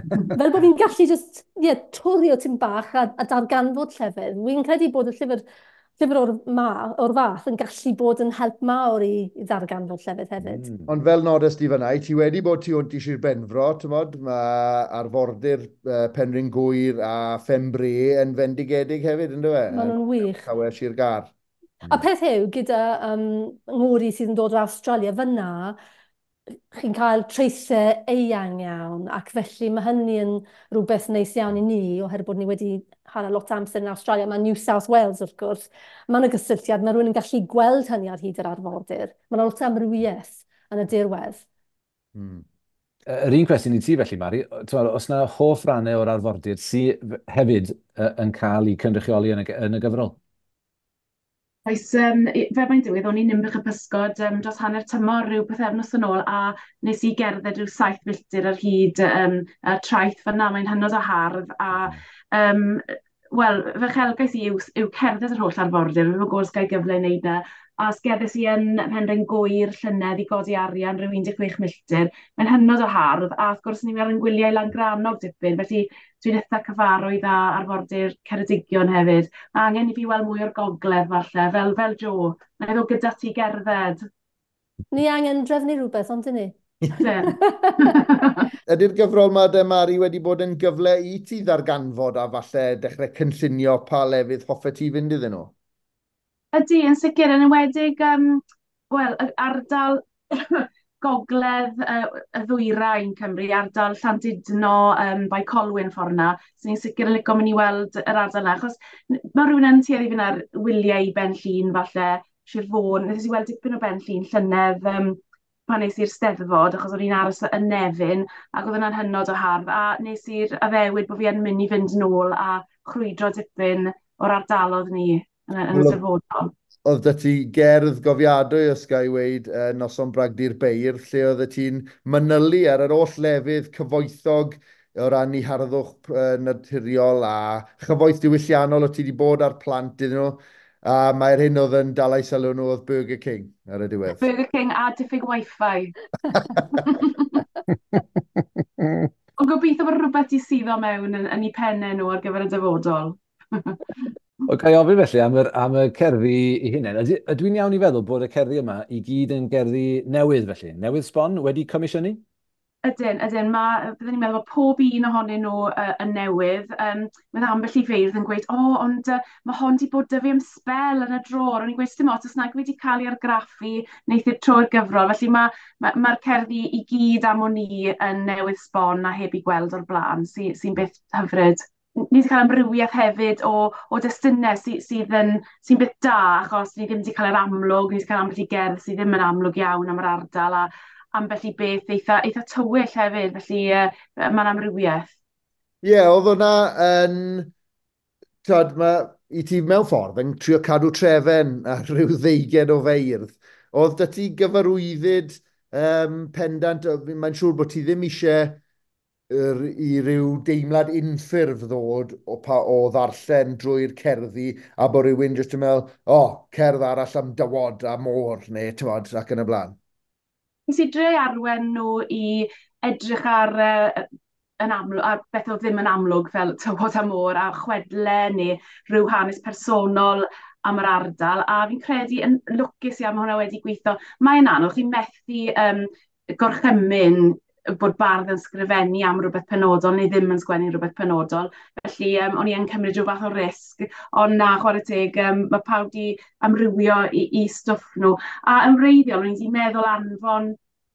fel bod fi'n gallu just, yeah, twrio tipyn bach a darganfod llefydd. Wi'n credu bod y llyfr o'r fath yn gallu bod yn help mawr i ddarganfod llefydd hefyd. Ond fel nodes di fan'na, ti wedi bod tu hwnt i Sir Benfro, ti'mod, mae arfordir Penrhyn Gŵyr a Phen-bre yn fendigedig hefyd, ynddo fe? Maen nhw'n wych. Tawe Sir Gâr. A peth yw, gyda ngŵr i sydd yn dod o Australia, fyna, chi'n cael traethau eang iawn, ac felly mae hynny yn rhywbeth neis iawn i ni, oherwydd bod ni wedi hala lot o amser yn Australia. Mae New South Wales, wrth gwrs, mae yna gysylltiad, mae rhywun yn gallu gweld hynny ar hyd yr arfordir. Mae yna lot o amrywiaeth yn y dirwedd. Yr un cwestiwn i ti felly, Mari, t'mod, oes 'na hoff rannau o'r arfordir sydd hefyd yn cael eu cynrychioli yn y gyfrol? Oes, fel mae'n digwydd, o'n i'n Ninbych y Pysgod dros hanner tymor rhyw pythefnos yn ôl, a nes i gerdded rhyw 7 milltir ar hyd y traeth fyna. Mae'n hynod o hardd, a wel, fy uchelgais i yw cerdded yr holl arfordir. Fi'n gwybod os ga i gyfle i wneud na. A sgeddes i yn Penrhyn Gŵyr llynedd i godi arian rhyw 16 milltir. Mae'n hynod o hardd, a wrth gwrs ni'n ar yn gwyliau Langrannog dipyn, felly dwi'n eitha cyfarwydd â arfordir Ceredigion hefyd. Mae angen i fi weld mwy o'r gogledd falle, fel Joe. Na i ddod gyda ti gerdded. Ni angen drefnu rhywbeth, ond dyn ni? Ydy'r gyfrol yma de, Mari, wedi bod yn gyfle i ti ddarganfod a falle dechrau cynllunio pa lefydd hoffet ti fynd iddyn nhw? Ydy, yn sicr, yn enwedig wel, yr ardal gogledd y ddwyrain Cymru, ardal Llandudno, Bae Colwyn ffordd 'na, so ni'n sicr yn licio mynd i weld yr ardal 'na, achos mae rhywun yn tueddu i fynd ar wyliau i Ben Llŷn falle, Sir Fôn. Nes i weld dipyn o Ben Llŷn llynedd pan nes i'r Steddfod, achos o'n i'n aros yn Nefyn, ac oedd hwnna'n hynod o hardd, a nes i'r addewid bod fi yn mynd i fynd nôl a chrwydro dipyn o'r ardalodd ni yn y dyfodol. Oedd 'da ti gerdd gofiadwy, os ga i weud, Noson Bragdy'r Beirdd, lle oedd ti'n manylu ar yr holl lefydd cyfoethog o ran eu harddwch naturiol a chyfoeth diwylliannol o ti wedi bod ar plant iddyn nhw. A mae'r hyn oedd yn dal eu sylw nhw oedd Burger King ar y diwedd. Burger King a diffyg Wi-Fi. Ond gobeithio bod rhywbeth i suddo mewn yn eu pennau nhw ar gyfer y dyfodol. O, ga i ofyn felly am y cerddi eu hunain. Ydw i'n iawn i feddwl bod y cerddi yma i gyd yn gerddi newydd felly? Newydd sbon, wedi comisiynu? Ydyn, ydyn. Mae, byddwn ni'n meddwl bod pob un ohonyn nhw yn newydd. Mae ambell i feirdd yn gweud, o, oh, ond mae hon wedi bod 'da fi am sbel yn y drôr. O'n i'n gweud, dim ots, os nag wedi cael ei argraffu, wneith i'r tro'r gyfrol. Felly mae'r ma cerddi i gyd am o'n i yn newydd sbon a heb i gweld o'r blaen, sy'n sy beth hyfryd. Ni wedi cael amrywiaeth hefyd o destunau sy beth da, achos ni ddim wedi cael yr amlwg, ni wedi cael ambell i gerdd sydd ddim yn amlwg iawn am yr ardal, a ambell i beth eitha tywyll hefyd, felly mae'n amrywiaeth. Ie, yeah, oedd hwnna yn... Tyd, ma, i ti mewn ffordd yn trio cadw trefen ar rhyw ddeugen o feirdd. Oedd 'da ti gyfarwyddyd pendant, mae'n siŵr bod ti ddim eisiau i ryw deimlad unffurf ddod o ddarllen drwy'r cerddi a bod rhywun jyst yn meddwl, o, oh, cerdd arall am dywod a môr, neu tywod, ac yn y blaen. Nes i dre arwen nhw i edrych ar, yn amlwg, ar beth oedd ddim yn amlwg fel tywod a môr a chwedle neu rhyw hanes personol am yr ardal, a fi'n credu yn lwcus iawn mae hwnna wedi gweithio. Mae'n anodd, chi'n methu gorchymyn bod bardd yn sgrifennu am rhywbeth penodol neu ddim yn sgwennu rhywbeth penodol. Felly o'n i yn cymryd rhyw fath o risg, ond na, chwarae teg, mae pawb wedi amrywio i stwff nhw. A yn wreiddiol, o'n i wedi meddwl anfon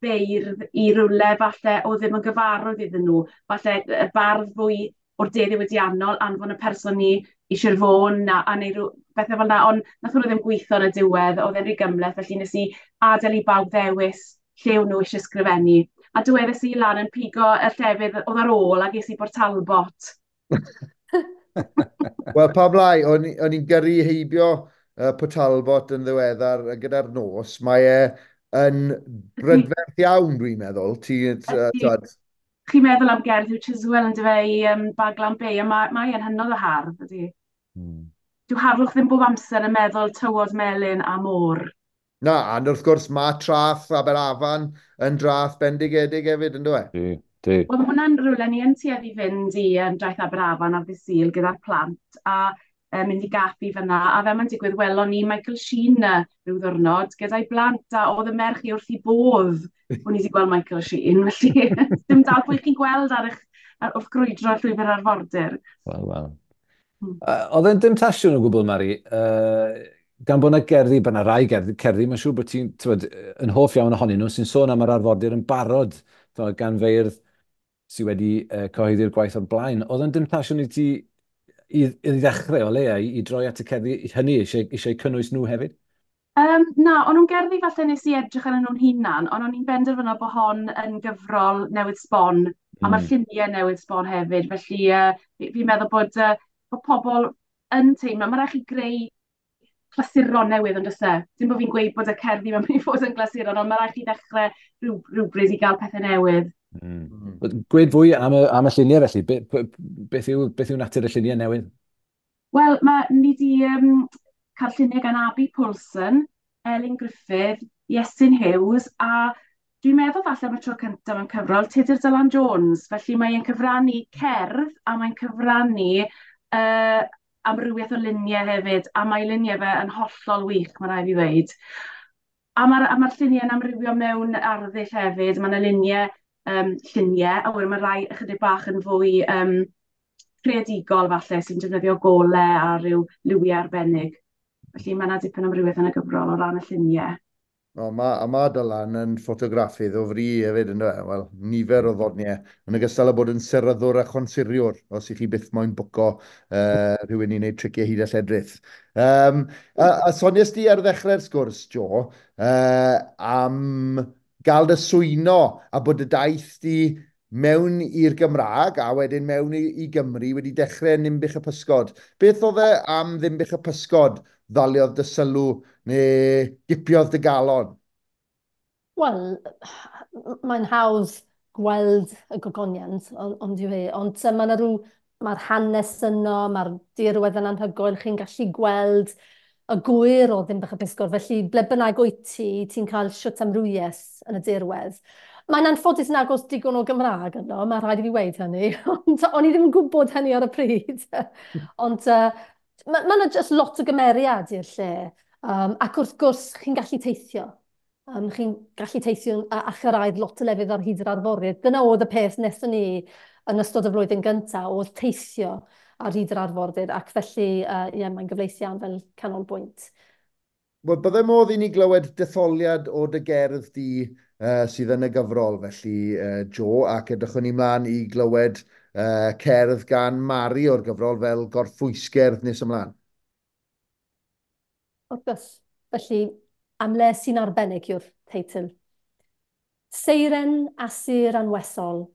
beirdd i rywle falle o ddim yn gyfarwydd iddyn nhw. Falle y bardd fwy o'r de ddiwydiannol, anfon y person i Sir Fôn a neu rhyw bethau fel yna, ond nath hwnnw ddim gweithio yn y diwedd, oedd e'n rhy gymhleth, felly nes i adael i bawb ddewis lle o'n nhw eisiau sgrifennu. A dywedais i lan yn pigo y llefydd oedd ar ôl a ges i Bort Talbot. Wel, pam lai, o'n i'n gyrru heibio Port Talbot yn ddiweddar gyda'r nos. Mae e yn brydferth iawn, dwi'n meddwl. Chi'n meddwl am gerdd Huw Chiswell yn dyfe i Baglan Bay, a mae e'n hynod o hardd, ydy. Dyw harddwch ddim bob amser yn meddwl tywod melyn a môr. Na, a wrth gwrs mae traeth Aberafan yn draeth bendigedig hefyd, yn dwi? Di. Wel, mae hwnna'n rhywle ni yn tueddu fynd i draeth Aberafan ar ddydd Sul gyda'r plant a mynd i gaffi fyna. A fel mae'n digwydd, welon ni Michael Sheen rhyw ddwrnod gyda'i blant, a oedd y merch i wrth i bodd o'n i wedi gweld Michael Sheen. Felly, dim dal pwy chi'n gweld ar wrth grwydro llwybr arfordir. Wel, wel. Oedd e'n demtasiwn o gwbl, Mari, gan bod yna gerddi, bod yna rai cerddi, mae'n siŵr bod ti'n yn hoff iawn ohonyn nhw, sy'n sôn am yr arfordir yn barod, gan feirdd sydd wedi cyhoeddi'r gwaith o'r blaen. Oedd e'n demtasiwn i ti i ddechrau o leia, i droi at y cerddi hynny, eisiau cynnwys nhw hefyd? Na, o'n nhw'n gerddi falle nes i edrych arnyn nhw'n hunan, ond o'n i'n benderfynol bod hon yn gyfrol newydd sbon, a mae'r lluniau newydd sbon hefyd, felly fi'n meddwl bod pobl yn teimlo, mae rhaid chi greu clasuron newydd, ond oes e? Dim bod fi'n gweud bod y cerddi mae'n mynd i fod yn glasuron, ond mae rhaid chi ddechrau rhywbryd i gael pethau newydd. Gweud fwy am y lluniau felly, beth yw natur y lluniau newydd? Wel, ni wedi cael lluniau gan Abi Poulsen, Elin Gruffydd, Iestyn Hughes, a dwi'n meddwl falle am y tro cyntaf mewn cyfrol, Tudur Dylan Jones. Felly mae'n cyfrannu cerdd a mae'n cyfrannu amrywiaeth o luniau hefyd, a mae luniau fe yn hollol wych, mae rhaid i ddweud. A mae'r ma lluniau'n amrywio mewn arddull hefyd. Mae yna lluniau, a wedyn mae rai ychydig bach yn fwy creadigol falle, sy'n defnyddio golau a rhyw liwiau arbennig. Felly mae yna dipyn o amrywiaeth yn y gyfrol o ran y lluniau. O, ma Dylan yn ffotograffydd o fri hefyd, ynddo fe? Wel, nifer o ddoniau. Yn ogystal â bod yn seryddwr a chonsuriwr, os ych chi byth moyn bwco rhywun i wneud triciau hyd a lledrith. A sonies di ar ddechrau'r sgwrs, Jo, am gael dy swyno a bod y daith di mewn i'r Gymraeg a wedyn mewn i Gymru wedi dechrau yn Ninbych y Pysgod. Beth oedd e am Ddinbych y Pysgod ddaliodd dy sylw neu gipiodd dy galon? Wel, mae'n hawdd gweld y gogoniant, ond yw hi. Ond mae rhyw, mae'r hanes yno, mae'r dirwedd yn anhygoel, chi'n gallu gweld y gwyr o Ddinbych y Pysgod. Felly, ble bynnag wyt ti, ti'n cael shwt amrywiaeth yn y dirwedd. Mae'n anffodus nag oes digon o Gymraeg yno, mae rhaid i fi weud hynny, ond o'n i ddim yn gwybod hynny ar y pryd. Ond mae yna just lot o gymeriad i'r lle. Ac wrth gwrs, chi'n gallu teithio. Chi'n gallu teithio a chyrraedd lot o lefydd ar hyd yr arfordir. Dyna oedd y peth wnaethon ni yn ystod y flwyddyn gyntaf, oedd teithio ar hyd yr arfordir, ac felly ie, mae'n gyfleus iawn fel canolbwynt. Wel, bydde modd i ni glywed detholiad o dy gerdd di sydd yn y gyfrol, felly, Jo, ac edrychwn ni mlaen i glywed cerdd gan Mari o'r gyfrol fel gorffwysgerdd nes ymlaen. Wrth gwrs. Felly, Am le sy'n arbennig yw'r teitl. Seiren asur anwesol,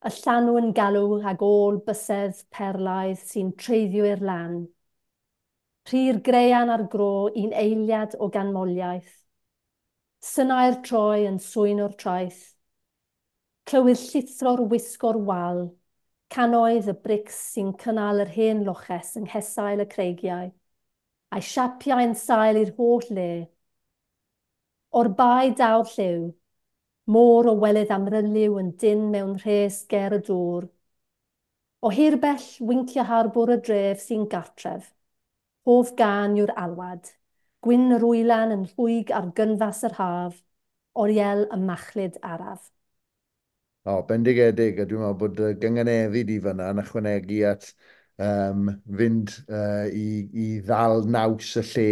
y llanw yn galw ag ôl bysedd perlaidd sy'n treiddio i'r lan. Rhy'r grean ar gro un eiliad o ganmoliaeth. Synau'r troi yn swyn o'r traeth. Clywir llithro'r wisgo'r wal, cannoedd y brics sy'n cynnal yr hen loches yng nghesail y creigiau, a'i siapiau yn sail i'r holl le. O'r bae daw'r lliw, môr o welydd amryliw yn dynn mewn rhes ger y dŵr. O hirbell wincio harbwr y dref sy'n gartref. Hoff gân yw'r alwad, gwyn yr wylan yn rhwyg ar gynfas yr haf, oriel y machlud araf. O, bendigedig, a dwi'n meddwl bod y gynganeddu di fyna yn ychwanegu at fynd i ddal naws y lle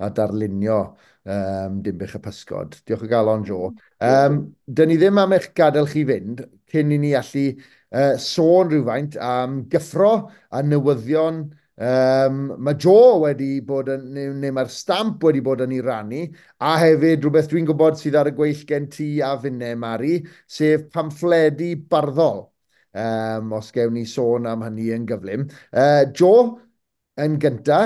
a darlunio Dinbych y Pysgod. Diolch o galon, Jo. Dyn ni ddim am eich gadael chi fynd cyn i ni allu sôn rhywfaint am gyffro a newyddion. Mae Jo wedi bod yn, neu mae'r Stamp wedi bod yn ei rannu, a hefyd rhywbeth dwi'n gwybod sydd ar y gweill gen ti a finne, Mari, sef pamffledi barddol. Os gewn ni sôn am hynny yn gyflym. Jo, yn gynta,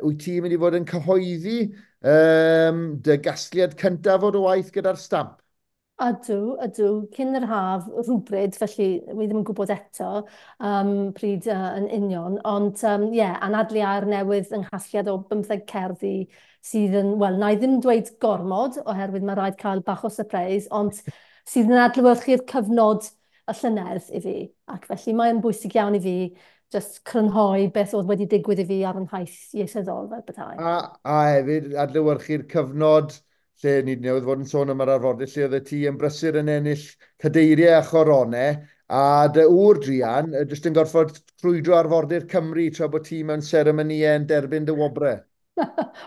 wyt ti'n mynd i fod yn cyhoeddi dy gasgliad cyntaf o dy waith gyda'r Stamp? Ydw, ydw. Cyn yr haf rhywbryd, felly wi ddim yn gwybod eto pryd yn union. Ond ie, yeah, anadlu aer newydd yng nghasgliad o 15 cerddi sydd yn, wel, na i ddim dweud gormod, oherwydd mae rhaid cael bach o surprise, ond sydd yn adlewyrchu'r cyfnod y llynedd i fi. Ac felly mae'n bwysig iawn i fi just crynhoi beth oedd wedi digwydd i fi ar yn nhaith ieithyddol fel petai. A hefyd adlewyrchu'r cyfnod lle ni newydd fod yn sôn am yr arfordir, lle oedd y ti yn brysur yn ennill cadeiriau a choronau, a dy ŵr druan jyst yn gorfod crwydro arfordir Cymru tra bod ti mewn seremonïau yn derbyn dy wobrau.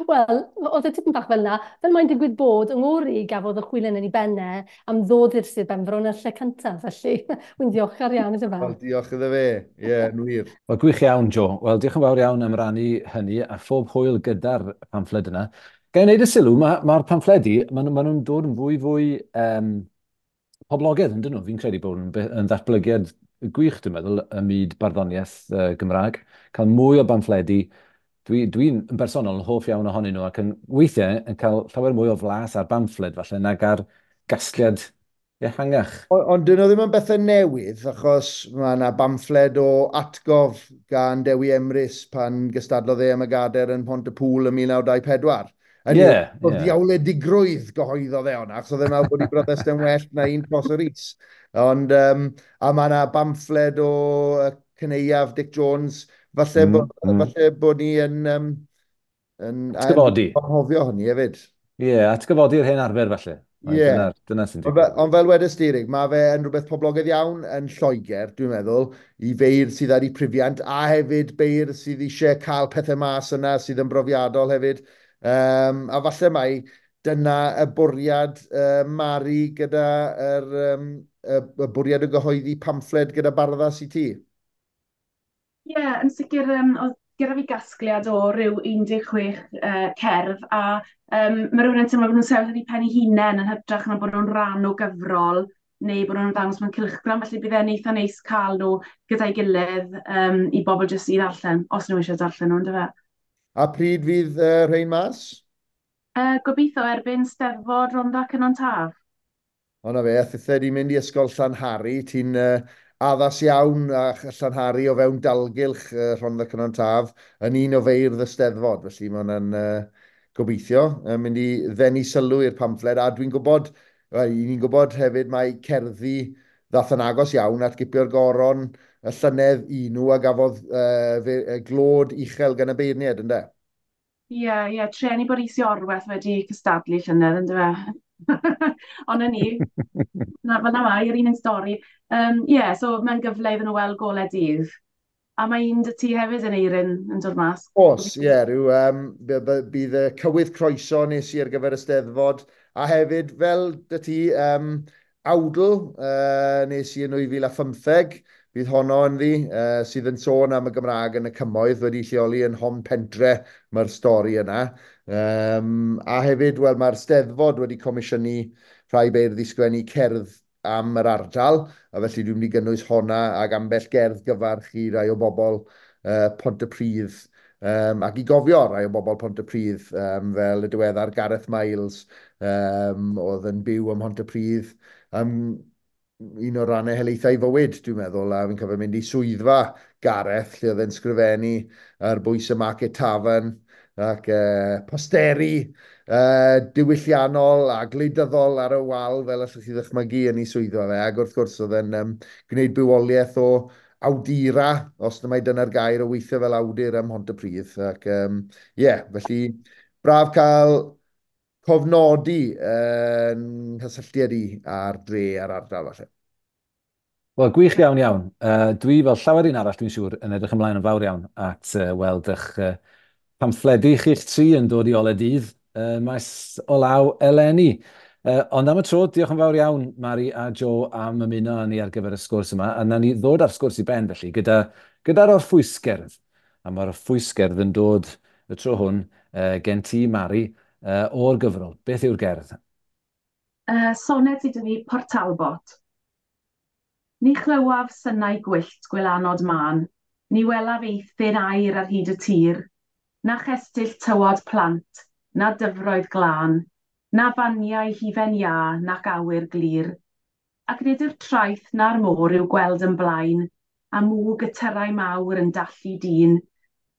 Wel, oedd e tipyn bach fel yna. Fel mae'n digwydd bod, yng ngŵr i gafodd y chwilen yn ei bennau am ddod i'r Sir Benfro yn y lle cyntaf, felly wy'n ddiolchgar iawn iddo fe. Wel, diolch iddo fe. Ie, yeah, yn wir. Wel, gwych iawn, Jo. Wel, diolch yn fawr iawn am rannu hynny a phob hwyl gyda'r pamffled yna. Ga i wneud y sylw, mae'r pamffledi, maen nhw'n dod yn fwy fwy poblogaidd, yn dyn nhw? Fi'n credu bod yn ddatblygiad gwych, dwi'n meddwl, ym myd barddoniaeth Gymraeg. Cael mwy o bamffledi, dwi'n yn bersonol yn hoff iawn ohonyn nhw ac yn weithiau yn cael llawer mwy o flas ar bamffled falle nag ar gasgliad ehangach. Ond dyn nhw ddim yn bethau newydd, achos mae yna bamffled o atgof gan Dewi Emrys pan gystadlodd e am y gadair yn Pont-y-pŵl ym 1924. Yn yeah, ddiawledigrwydd gyhoeddodd e hwnna, achos oedd e'n meddwl bod ei bryddest yn well na un Prosser Rees. Ond, a mae yna bamffled o cyneuaf Dick Jones, falle, falle bod ni yn, yn atgyfodi. Anghofio hynny hefyd. Ie, yeah, atgyfodi'r hen arfer falle. Ie. Yeah. Dyna sy'n digwydd. Ond fel wedys di, Rig, mae fe yn rhywbeth poblogaidd iawn yn Lloegr, dwi'n meddwl, i feirdd sydd ar eu prifiant, a hefyd beirdd sydd eisiau cael pethau mas yna sydd yn brofiadol hefyd. A falle mai dyna y bwriad Mari gyda y bwriad o gyhoeddi pamffled gyda Barddas i ti. Ie, yeah, yn sicr, oedd gyda fi gasgliad o ryw 16 cerdd, a mae rhywun yn teimlo bod nhw'n sefyll ar eu pen eu hunain yn hytrach na bod nhw'n rhan o gyfrol neu bod nhw'n ddangos mewn cylchgrawn, felly bydd e'n eitha neis cael nhw gyda'i gilydd i bobl jyst i ddarllen, os nhw eisiau darllen nhw, yndyfe. A pryd fydd rhain mas? Gobeithio erbyn Steddfod Rhondda Cynon Taf. O na fe, a thithe di mynd i ysgol Llanhari, ti'n addas iawn a Llanhari o fewn dalgylch Rhondda Cynon Taf yn un o feirdd y Steddfod, felly mae hwnna'n gobeithio mynd i ddenu sylw i'r pamffled, a dwi'n gwybod, wel, i ni'n gwybod hefyd mae cerddi ddath yn agos iawn at gipio'r goron y llynedd i nhw a gafodd glod uchel gan y beirniaid, ynde? Ie, yeah, treni bod Rhys Iorwerth wedi cystadlu llynedd, yndyfe? Ond na ni, na, fel na mae, yr un yn stori. Ie, so mae'n gyfle iddyn nhw weld golau dydd. A mae un dy ti hefyd yn Eirin yn dod mas. Oes, ie, rhyw, bydd y cywydd croeso nes i ar gyfer y Steddfod. A hefyd, fel dy ti, awdl nes i yn 2015, bydd honno ynddi, sydd yn sôn am y Gymraeg yn y cymoedd, wedi lleoli yn Hon Pentre, mae'r stori yna. A hefyd, wel, mae'r Steddfod wedi comisiynu rhai beirdd i sgwennu cerdd am yr ardal, a felly dwi'n mynd i gynnwys honna ac ambell gerdd gyfarch i rai o bobl Pontypridd, ac i gofio rai o bobl Pontypridd, fel y diweddar Gareth Miles, oedd yn byw ym Mhontypridd, un o'r rannau helaethau fywyd, dwi'n meddwl, a fi'n cofio mynd i swyddfa Gareth, lle oedd e'n sgrifennu ar bwys y Market Tavern, ac posteri diwylliannol a gwleidyddol ar y wal, fel allwch chi ddychmygu yn ei swyddfa fe, ac wrth gwrs oedd e'n gwneud bywoliaeth o awdura, os na mai dyna'r gair, o weithio fel awdur ym Mhontypridd, ac ie, felly braf cael cofnodi yn nghysylltiad i a'r dre a'r ardal falle. Wel, gwych iawn iawn. Dwi, fel llawer un arall, dwi'n siŵr, yn edrych ymlaen yn fawr iawn at weld eich pamffledi chi'ch tri yn dod i ole dydd maes o law eleni. Ond am y tro, diolch yn fawr iawn, Mari a Joe, am ymuno â ni ar gyfer y sgwrs yma. A nawn ni ddod â'r sgwrs i ben, felly, gyda'r orffwysgerdd. A mae'r orffwysgerdd yn dod y tro hwn gen ti, Mari, o'r gyfrol. Beth yw'r gerdd? Soned sydd 'da fi, Port Talbot. Ni chlywaf synau gwyllt gwylanod mân, ni welaf eithin aur ar hyd y tir, na chestyll tywod plant, na dyfroedd glân, na faniau hufen iâ nac awyr glir. Ac nid yw'r traeth na'r môr i'w gweld yn blaen, a mwg y tyrau mawr yn dallu dyn.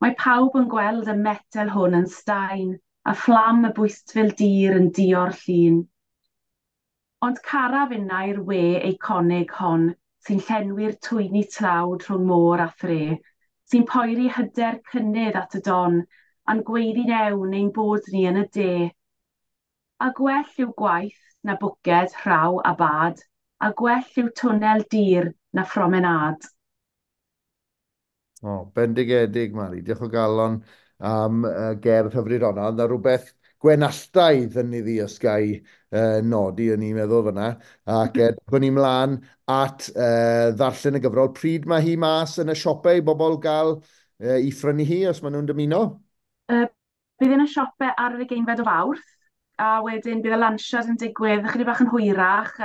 Mae pawb yn gweld y metel hwn yn staen, a fflam y bwystfil dir yn dio'r llun. Ond caraf innau'r we eiconig hon, sy'n llenwi'r twyni tlawd rhwng môr a thre, sy'n poeri hyder cynnydd at y don, a'n gweiddi'n ewn ein bod ni yn y de. A gwell yw gwaith na bwced, rhaw a bad, a gwell yw twnnel dir na phromenâd. O, bendigedig, Mari. Diolch o galon am gerdd hyfryd honna. Ond na rhywbeth gwenalltaidd yn iddi os ga i nodi, o'n i'n meddwl fyna. Ac edrychwn ni mlaen at ddarllen y gyfrol. Pryd mae hi mas yn y siopau i bobl gael i phrynu hi, os maen nhw'n dymuno? Bydd yn y siopau ar yr 20fed o Fawrth, a wedyn bydd y lansiad yn digwydd ychydig bach yn hwyrach,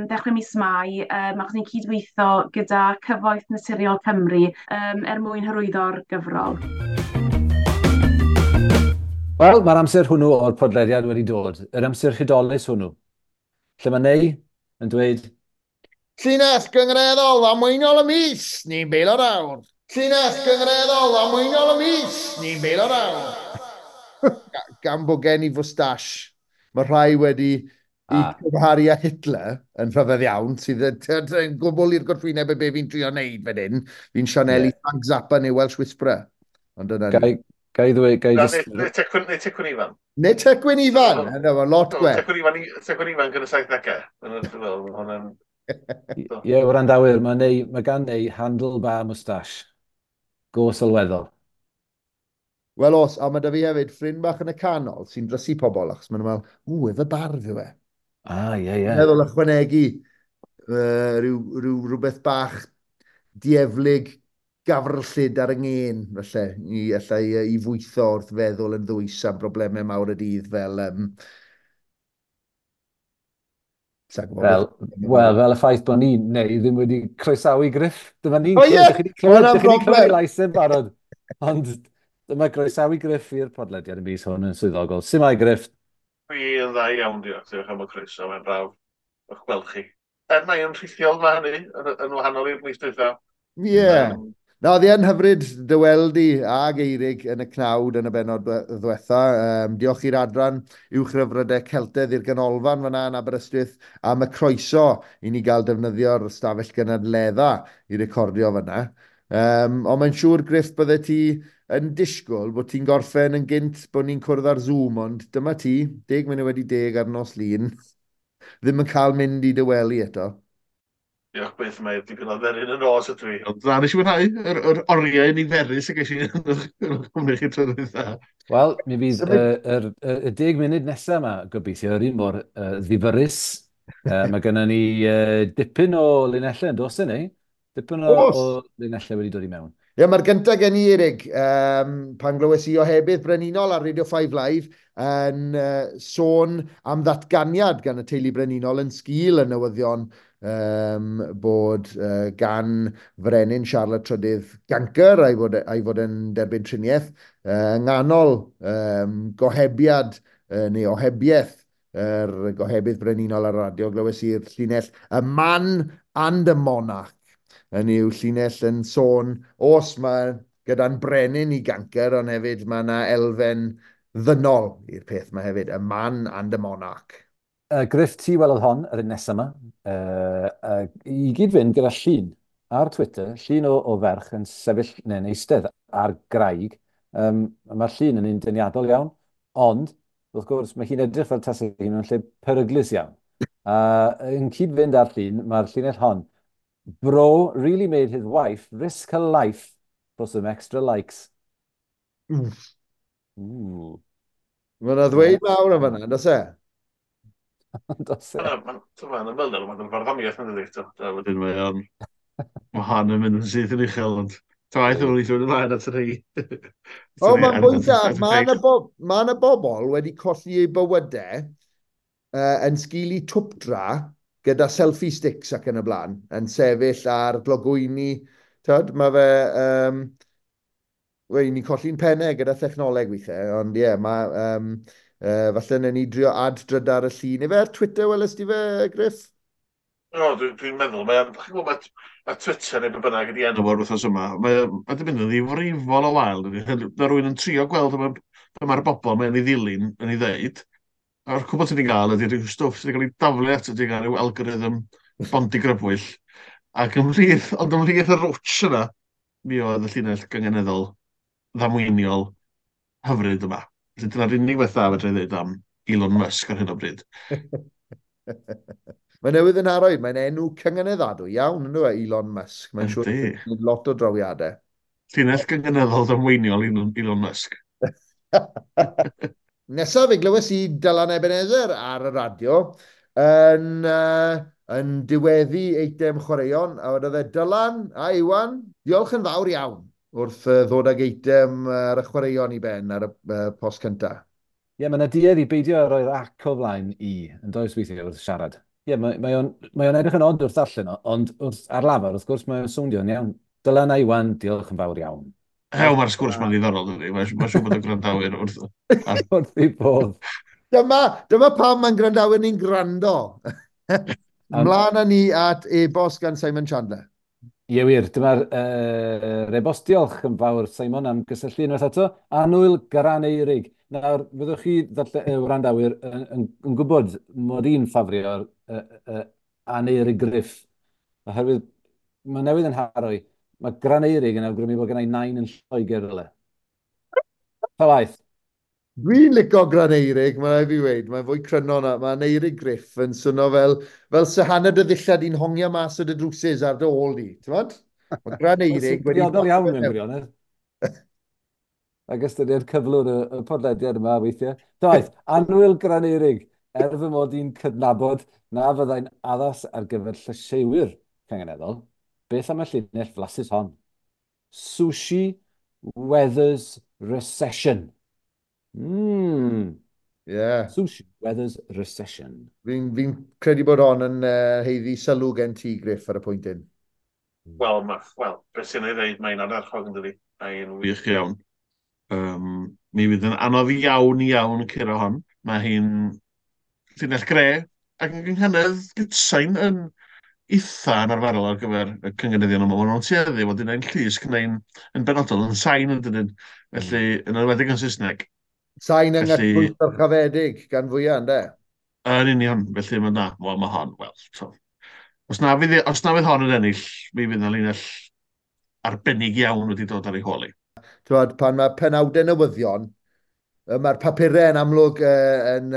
ddechrau mis Mai, achos ni'n cydweithio gyda Cyfoeth Naturiol Cymru er mwyn hyrwyddo'r gyfrol. Wel, mae'r amser hwnnw o'r podlediad wedi dod, yr amser hudolus hwnnw, lle mae Nei yn dweud Llinell gyngreddol ddamweiniol y mis, ni'n beilio'r awr. Llinell gyngreddol ddamweiniol y mis, ni'n beilio'r awr. gan bod gen i fwstash, mae rhai wedi i cymharu â Hitler yn rhyfedd iawn, sydd yn gwbl i'r gwrthwyneb y be fi'n trio wneud fan hyn. Fi'n sianelu Frank Zappa neu Welsh Whisperer. Ond dyna ni. Gai ddweud... Gai just... Neu Tecwyn Ifan. Neu Tecwyn Ifan! Yna, mae'n lot gwell. Tecwyn Ifan gyda 70au. Ie, wrandawyr, mae gan Neu handlebar moustache. Go sylweddol. Wel os, a mae da fi hefyd ffrind bach yn y canol sy'n drysu pobl, achos maen nhw'n meddwl, ww, efe barf yw e. Ah, ie, ie. Meddwl ychwanegu rhywbeth bach dieflig gafrllyd ar y ngên, falle, i fwytho wrth feddwl yn ddwys am broblemau mawr y dydd fel... Fel y ffaith bod ni, neu ddim wedi croesawu Griff. Dyma ni'n clywed lais yn barod. Ond dyma groesawu Griff i'r podlediad y mis hwn yn swyddogol. Sut mae Griff? Dwi yn dda iawn, diolch. Diolch am y croeso, mae'n braf o'ch gweld chi. Er mae yn rhithiol mae hynny, yn wahanol i'r mis dwytha. Ie. Na, oedd hi yn hyfryd dy weld i ag Eirig yn y cnawd yn y bennod ddwetha. Diolch i'r adran uwchryfrydau Celtedd i'r ganolfan fyna yn Aberystwyth am y croeso i ni gael defnyddio'r stafell gynadledda i recordio fyna. Ond mae'n siŵr, Griff, bydde ti yn disgwyl bod ti'n gorffen yn gynt bod ni'n cwrdd ar Zoom, ond dyma ti, 10:10 ar nos Lun, ddim yn cael mynd i dy wely eto. Diolch byth, mae dipyn o dderyn yn nos ydw i. Ond na, nes i mwynhau yr oriau niferus y ges i yn cwmni chi tro dwytha. Wel, mi fydd y 10 munud nesaf yma, gobeithio, yr un mor ddifyrrus. Mae gennym ni dipyn o linellau yn dos ni. Dipyn o linellau wedi dod i mewn. Ie, mae'r gyntaf gen i, Eirig, pan glywes i ohebydd brenhinol ar Radio 5 Live yn sôn am ddatganiad gan y teulu brenhinol yn sgil y newyddion bod gan frenin Charlotte Trydydd gancr a'i fod yn derbyn triniaeth yng nghanol gohebiad neu ohebiaeth yr gohebydd brenhinol ar radio. Glywes i'r llinell "A man and a monarch" yn yw llinell yn sôn, os mae gyda'n brenin i gancr, ond hefyd mae yna elfen ddynol i'r peth yma hefyd, a man and a monarch. Griff, ti welodd hon yr un nesaf yma, i gyd fynd gyda llun ar Twitter, llun o ferch yn sefyll neu'n eistedd ar graig. Mae'r llun yn un deniadol iawn, ond, wrth gwrs, mae hi'n edrych fel tasau hi mewn lle peryglus iawn. Yn cyd-fynd â'r llun, mae'r llinell hon. Bro really made his wife risk her life for some extra likes. Ooh. Mae yna ddweud mawr am fyna, does e? Does e? Mae'n ymwneud, mae'n farddoniaeth yn dweud. Wedyn mae o'n... Mae hon yn mynd yn syth yn uchel, ond taith o'n eithaf ymlaen at y rhai. O, mae'n bwynt da. Mae yna bobl wedi colli eu bywydau yn sgil i twpdra gyda selfie sticks ac yn y blaen, yn sefyll ar glogwyni. Tyd, mae fe... Wel, ni'n colli'n pennau gyda thechnoleg weithiau, ond ie, mae... falle wnawn ni drio ad-drydar y llun. Ife ar Twitter welest ti fe, Griff? O, dwi'n meddwl, mae Twitter neu be bynnag ydi enw o'r wythnos yma, mae wedi mynd yn ddifrifol o wael. Mae rhywun yn trio gweld be mae'r bobl mae'n ei ddilyn yn ei ddeud. A'r cwbl ti'n ei gael ydy rhyw stwff sydd wedi cael ei daflu ato ti gan ryw algorithm bondigrybwyll. Ac ymhlith, ond ymhlith y rwtsh yna, mi oedd y llinell gynganeddol ddamweiniol hyfryd yma. Felly dyna'r unig beth dda fedra i ddweud am Elon Musk ar hyn o bryd. Mae newydd yn arwydd, mae'n enw cynganeddadwy iawn, ynddo e, Elon Musk. Mae'n siŵr bod lot o drawiadau. Llinell gynganeddol ddamweiniol Elon Musk. Nesaf, fe glywes i Dylan Ebenezer ar y radio yn diweddu eitem chwaraeon, a wedodd e, Dylan a Iwan, diolch yn fawr iawn wrth ddod ag eitem ar y chwaraeon i ben ar y post cyntaf. Ie, mae yna duedd i beidio â roi'r ac o flaen i, yn does weithiau wrth siarad. Ie, mae o'n edrych yn od wrth darllen o, ond wrth ar lafar, wrth gwrs, mae'n swnio'n iawn. Dylan a Iwan, diolch yn fawr iawn. Hew, mae'r sgwrs ma'n ddiddorol, dydy. Mae'n siŵr bod y gwrandawyr wrth... Wrth ei bodd. Dyma pam mae'n gwrandawyr ni'n gwrando. Mlaen â ni at e-bost gan Simon Chandler. Ie wir, dyma'r e-bost. Diolch yn fawr, Simon, am gysylltu unwaith eto. Annwyl Garaneurig. Nawr, fyddwch chi, wrandawyr, yn gwybod mod i'n ffafrio'r Aneurig Griff, oherwydd mae newydd yn haro i. Mae Graneurig yn awgrymu bod gen i nain yn Lloegr rywle. Ta waeth. Dwi'n licio Graneurig, mae rhaid fi weud, mae'n fwy cryno na, mae Aneurig Griff yn swnio fel se hanner dy ddillad di'n hongian mas o dy drwsus ar dy ôl di, ti'n gwbod? Mae Graneurig wedi... Briodol iawn mewn gwirionedd. Ac ystyried cyflwr y podlediad yma weithiau. Ta waeth, annwyl Graneurig, er fy mod i'n cydnabod na fyddai'n addas ar gyfer llysieuwyr cynganeddol, beth am y llinell flasus hon? Sushi Weathers Recession. Yeah. Sushi Weathers Recession. Fi'n fi credu bod hon yn haeddu sylw gen ti, Griff, ar y pwynt hyn. Wel, well, beth sy'n ei ddeud, mae'n ardderchog yn dydi. Mae'n wych iawn. Mi fydd yn anodd iawn iawn curo hon. Mae hi'n llinell gre ac yn gynghanedd gytsain yn eitha anarferol ar gyfer y cynganeddion yma. Maen nhw'n tueddu fod un llusg neu'n yn benodol yn sain yn dydyn. Felly, yn enwedig yn Saesneg. Sain yng Nghytbwys dyrchafedig gan fwyaf, ynde? Yn union, felly mae na, wel mae hon, wel, so. Os na fydd hon yn ennill, mi fydd yna linell arbennig iawn wedi dod ar ei hôl hi. T'wod, pan mae penawdau newyddion, mae'r papurau yn amlwg yn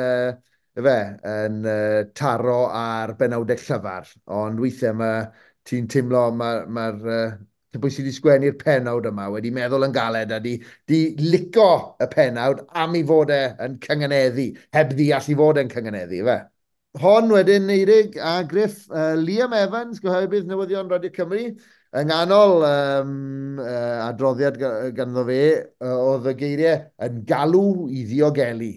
taro ar benawdau llyfar, ond weithiau mae ti'n teimlo mae'r pwy sydd wedi sgwennu'r penawd yma wedi meddwl yn galed a di lico y penawd am ei fod e yn cynganeddu, heb ddeall i fod e'n cynganeddu, ife? Hon wedyn, Eirig a Griff, Liam Evans, gyhoebydd newyddion Radio Cymru, yng nghanol adroddiad ganddo fe, oedd y geiriau yn galw i ddiogelu.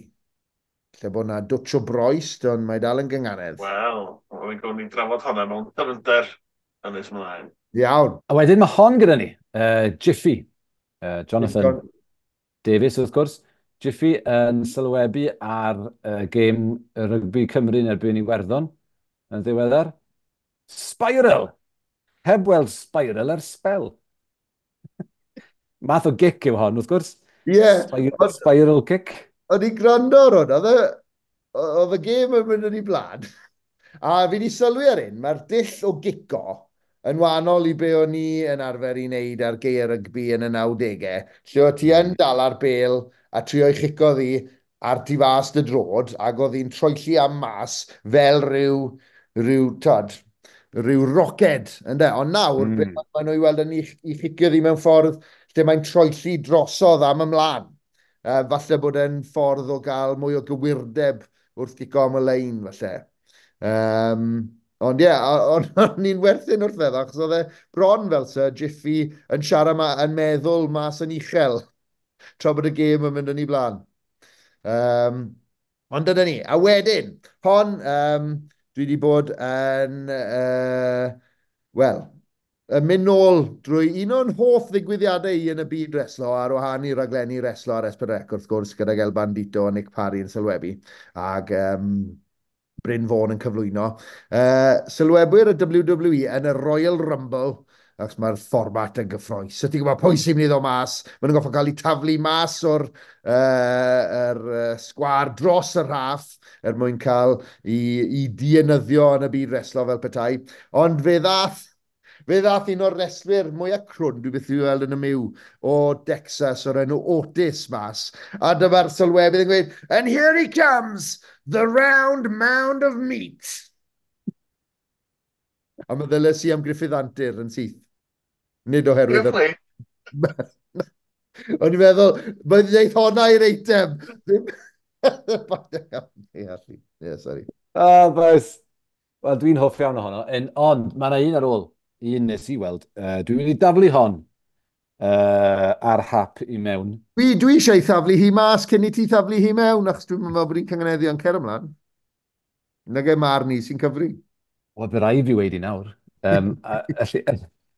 Lle bod na dwtch o broest, ond mae dal yn gynganedd. Wel, o'n i'n gwneud drafod hwnna mewn dyfnder yn nes ymlaen. Iawn. A wedyn mae hon gyda ni, Jiffy, Jonathan Davies wrth gwrs. Jiffy yn sylwebu ar gêm rygbi Cymru yn erbyn Iwerddon yn ddiweddar. Spiral! Heb weld spiral ar sbel. Math o gic yw hon, wrth gwrs. Ie. Spiral kick. O'n i'n gwrando ar hwn, oedd y gêm yn mynd yn ei blaen. A fi wedi sylwi ar un, mae'r dull o gico yn wahanol i be o'n i yn arfer i wneud ar geir rygbi yn y 90au, lle o ti yn dal ar bêl a trio i chico ddi ar tu fas dy drod, ac oedd hi'n troelli am mas fel rhyw roced, ynde? Ond nawr, be maen nhw i weld yn i chicio ddi mewn ffordd lle mae'n troelli drosodd am ymlaen. Falle bod e'n ffordd o gael mwy o gywirdeb wrth gico am y lein, falle. Ond ie, o'n i'n werthu'n wrth feddwl, achos oedd e bron fel Sir Jiffy yn siarad ma, yn meddwl mas yn uchel, tra bod y gêm yn mynd yn ei blaen. Ond dyna ni. A wedyn, hon, dwi wedi bod yn, wel, yn mynd nôl drwy un o'n hoff ddigwyddiadau i yn y byd reslo, ar wahân i raglenni reslo ar S4C, wrth gwrs, gydag El Bandito a Nick Parry yn sylwebu, ac Bryn Fôn yn cyflwyno. Sylwebwyr y WWE yn y Royal Rumble, achos mae'r fformat yn gyffrous. So ti'n gwybod pwy sy'n mynd i ddod mas, maen nhw'n gorfod cael eu taflu mas o'r sgwâr dros y rhaff er mwyn cael i dienyddio yn y byd reslo fel petai. Ond fe ddath un o'r reslwyr mwyaf crwn, dwi byth wedi weld yn y myw, o Texas o'r enw Otis mas. A dyma'r sylwebydd yn gweud, "And here he comes, the round mound of meat." A meddyliais i am Gruffydd Antur yn syth. Nid oherwydd... O'n i'n meddwl, mae'n dweud honna i'r eitem. Ie, sorry. Ah, boys. Wel, dwi'n hoff iawn ohono. Ond, mae yna un ar ôl. Un nes i weld. Dwi'n mynd i daflu hon ar hap i mewn. Dwi eisiau thaflu hi mas cyn i ti thaflu hi mewn, achos dwi'n meddwl bod hi'n cynganeddu yn cer ymlaen. Nag e marn i sy'n cyfri. Wel, bydd rhaid fi weud i nawr.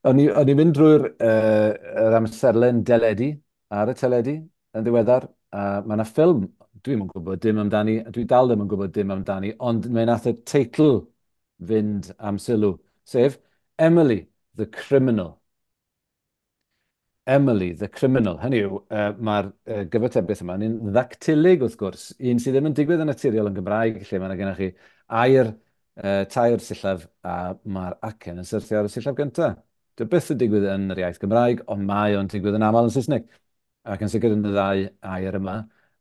O'n i'n mynd drwy'r yr amserlen deledu, ar y teledu, yn ddiweddar. A mae yna ffilm, dwi'm yn gwybod dim amdani, dwi dal ddim yn gwybod dim amdani, ond mae nath y teitl fynd am sylw, sef Emily, the Criminal. Emily, the Criminal. Hynny yw, mae'r gyfatebiaeth yma yn un ddactilig, wrth gwrs, un sydd ddim yn digwydd yn naturiol yn Gymraeg, lle mae yna gennych chi air, tair sillaf, a mae'r acen yn syrthio ar y sillaf gyntaf. Dyw byth yn digwydd yn yr iaith Gymraeg, ond mae o'n digwydd yn aml yn Saesneg, ac yn sicr yn y ddau air yma.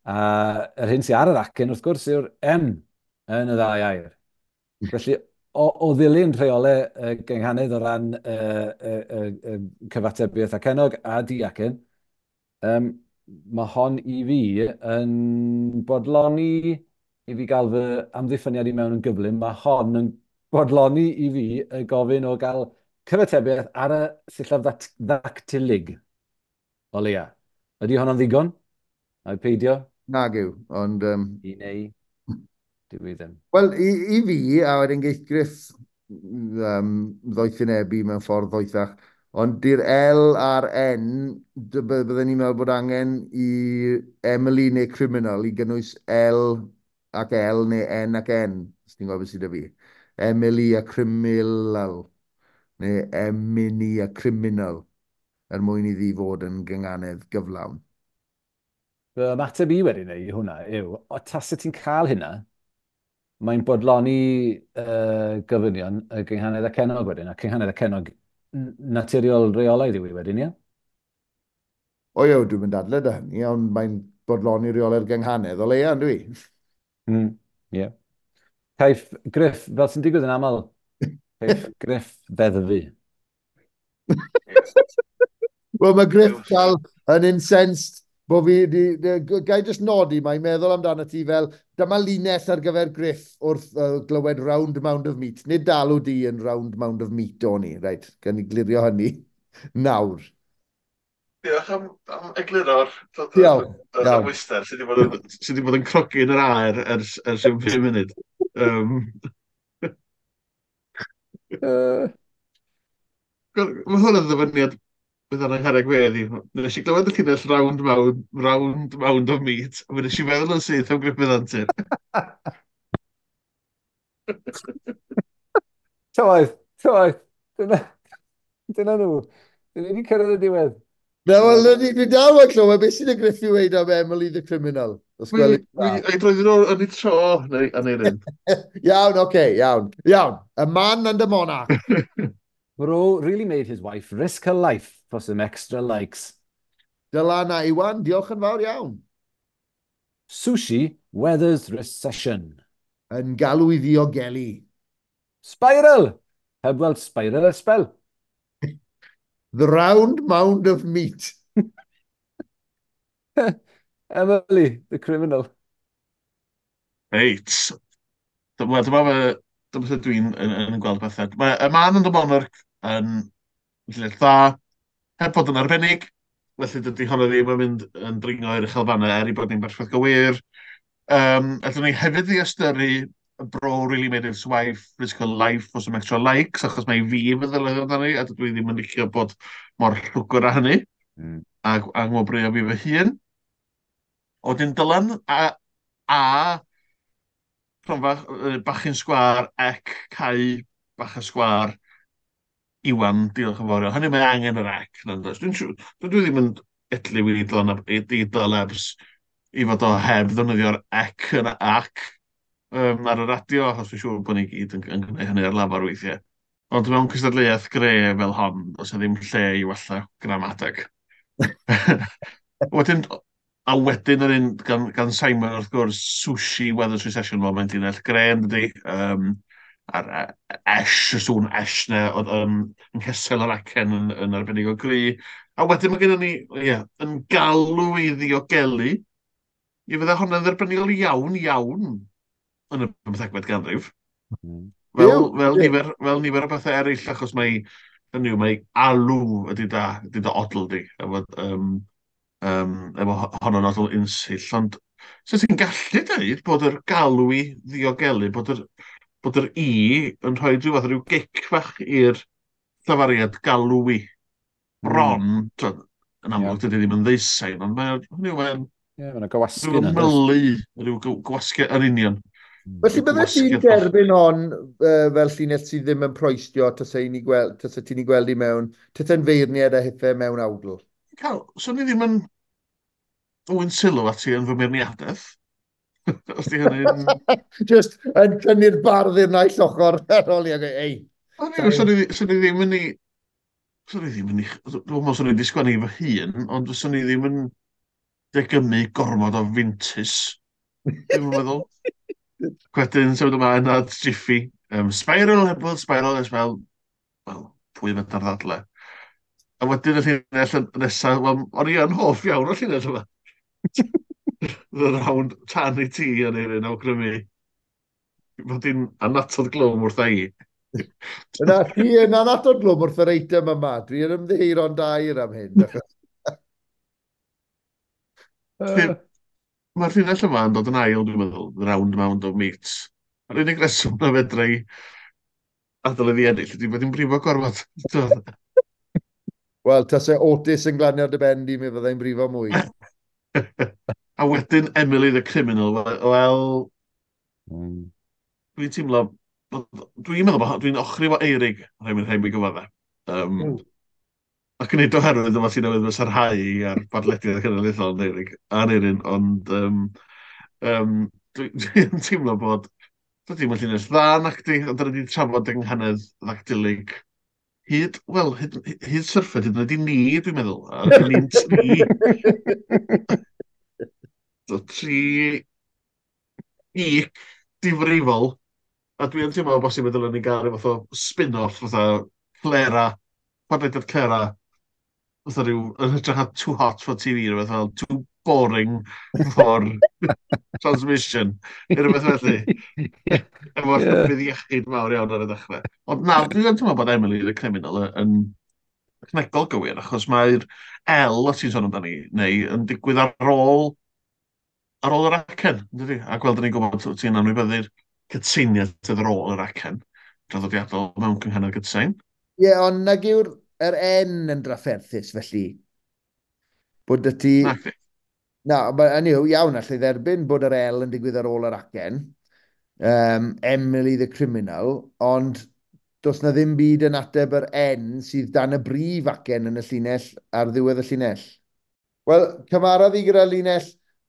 A yr hyn sydd ar yr acen, wrth gwrs, yw'r M yn y ddau air. Felly, o ddilyn rheolau gynghanedd o ran cyfatebiaeth acennog a diacen, mae hon i fi yn bodloni i fi gael fy amddiffyniad i mewn yn gyflym. Mae hon yn bodloni i fi y gofyn o gael cyfatebiaeth ar y sillaf ddactilig, o leia. Ydy honno'n ddigon? Ai peidio? Nag yw, ond... I neu, dwi i ddim. Wel, i fi, a wedyn geith Griff ddoethinebu mewn ffordd ddoethach, ond di'r L a'r N, bydden ni'n meddwl bod angen i Emily neu Criminal i gynnwys L ac L neu N ac N, os ti'n gwybod beth sydd 'da fi. Emily a Criminal, neu Emily a Criminal, er mwyn iddi fod yn gynganedd gyflawn. Fy ymateb i wedyn i hwnna yw, o tasa ti'n cael hynna, mae'n bodloni gofynion y gynghanedd acennog wedyn, a cynghanedd acennog naturiol reolaidd yw i wedyn, ie? O ie, dwi'n mynd dadle da hynny, ond mae'n bodloni reolau'r gynghanedd o leia, yndw i? Ie. Caiff Griff, fel sy'n digwydd yn aml, caiff Griff ddeddfu. Wel, mae Griff dal yn incensed bo fi, gai jyst nodi, mae'n meddwl amdano ti fel, dyma linell ar gyfer Griff wrth glywed Round Mound of Meat. Nid dalw di yn Round Mound of Meat o'n i, reit, gan i glirio hynny nawr. Diolch am egluro'r Diolch. Amwyster sydd wedi bod yn crogi yn yr aer ers rhyw 5 munud. Mae hwn yn ddyfyniad bydd yna'n ngharreg fedd i. Nes i glywed y llinell round mound of meat, a nes i feddwl yn syth am Gruffudd Antur. Tywaith, tywaith. Dyna nhw. Dyna ni wedi cyrraedd y diwedd. Na, wel, dwi dal yn clywed beth sy'n y Griff i weud am Emily the Criminal. Os gweli dda. Ei droi nhw yn ei tro, neu yn ei ryn. Iawn, oce, okay, iawn. Iawn, a man and a monarch. Bro really made his wife risk her life for some extra likes. Dylan a Iwan, diolch yn fawr iawn. Sushi weathers recession. Yn galw i ddiogelu. Spiral! Heb weld spiral ers sbel. The Round Mound of Meat. Emily, the Criminal. Reit. Dyma sut dwi'n yn gweld pethau. Mae y Man and the Monarch yn llinell dda, heb fod yn arbennig, felly dydy honno ddim yn mynd yn dringo i'r uchelfannau er i bod ni'n berffaith gywir. Allwn ni hefyd ddiystyru Bro Really Made His Wife Risk Her Life for Some Extra Likes, achos mae fi yn feddwl amdani, a dydw i ddim yn licio bod mor llwgr â hynny, a ngwobrwyo fi fy hun. Wedyn Dylan a Cronfa Bachyn Sgwâr, ec, Cau Bach y Sgwâr, Iwan, diolch yn fawr iawn. Hynny mae angen yr ec. Dwi'n siŵr, dwi ddim yn edliw i Dylan i Dylebs i fod o heb ddefnyddio'r ec yn ac ar y radio, achos dwi'n siŵr bod ni gyd yn gwneud hynny ar lafar weithiau. Ond mewn cystadleuaeth gre fel hon, does 'na ddim lle i wella gramadeg. Wedyn, a wedyn yr un gan Simon, wrth gwrs, Sushi Weathers Recession, wel, mae'n llinell gre yn dydi. A'r esh, y sŵn esh na, oedd yng nghesel yr acen yn arbennig o gry. A wedyn mae gennym ni, ie, yn galw i ddiogelu. I fydde hwnna'n dderbyniol iawn, iawn yn y 15fed ganrif. Fel nifer o bethau eraill, achos mae, hynny yw, mae alw ydy da odl di, efo honno'n odl unsill. Ond so ti'n gallu dweud bod yr galw i ddiogelu, bod yr i yn rhoi rhyw fath o ryw gic fach i'r llafariad galw i. Bron, yn amlwg dydy ddim yn ddeusain, ond mae'n Ie, mae'n gywasgu yna. Rhyw mylu, rhyw gywasgu yn union. Felly bydde ti'n derbyn hon fel llinell sydd ddim yn proestio tase ti'n ei gweld i mewn, tase'n feirniad a hithe mewn awdl? Cael, swn i ddim yn dwyn sylw at ti yn fy meirniadaeth. Os di hynny'n... Just yn tynnu'r bardd i'r naill ochr ar ôl i ag, ei. Swn i ddim yn ei... Swn i ddim yn ei... Dwi'n meddwl swn i wedi sgwennu fy hun, ond swn i ddim yn degymu gormod o fintus. Dwi'n meddwl. Wedyn, symud ymlaen at Jiffy. Spiral, hebl, spiral, spiral. Wel, pwy fedar ddadle. A wedyn y llinell nesaf, wel, o'n i yn hoff iawn o'r llinell yma. The round tan i ti yn ei ryn awgrymu. Fod hi'n anatod glwm wrtha i. Yna, ti yn anatod glwm wrth yr eitem yma. Dwi'n ymddiheuro'n dair am hyn. Mae'r llinell yma yn dod yn ail, dwi'n meddwl, the round mound of meat. A'r unig reswm na fedra i adael iddi ennill ydy bod hi'n brifo gorfod. Wel, tase Otis yn glanio dy ben di, mi fyddai'n brifo mwy. A wedyn Emily the Criminal, wel, dwi'n teimlo, dwi'n meddwl bod dwi'n ochri fo Eirig, rhaid mi gyfadde. Ac yn neud oherwydd yma ti'n newydd fy sarhau ar badlediad cenedlaethol yn Eirig, Aneirin, ond dwi'n teimlo bod dydy ddim yn llinell dda nac di, ond dyna ni'n trafod yng nghanedd ddactylig hyd, wel, hyd syrffed, hyd yn oed i ni, dwi'n meddwl. A dyn ni'n tri. So, tri geek difrifol. A dwi'n teimlo bosib y dylen ni gael rhyw fath o spin-off, fatha Clera, podlediad Clera, fatha rhyw, yn hytrach na Too Hot for TV, rhywbeth fel Too Boring for Transmission, neu rhywbeth felly. Efo'r rhybudd iechyd mawr iawn ar y dechrau. Ond na, dwi'n teimlo bod Emily the Criminal yn technegol gywir, achos mae'r L, os ti'n sôn amdani, neu yn digwydd ar ôl yr acen, dydy? A gweld ni'n gwybod ti'n anwybyddu'r cytseiniad sydd ar ôl yr acen draddodiadol mewn cynghanedd gytsein. Ie, yeah, ond nag yw'r yr N yn drafferthus, felly. Bod y ti... Na, hynny yw, iawn, allai dderbyn bod yr L yn digwydd ar ôl yr acen. Emily the Criminal, ond does na ddim byd yn ateb yr N sydd dan y brif acen yn y llinell ar ddiwedd y llinell. Wel, cymharodd i gyda linell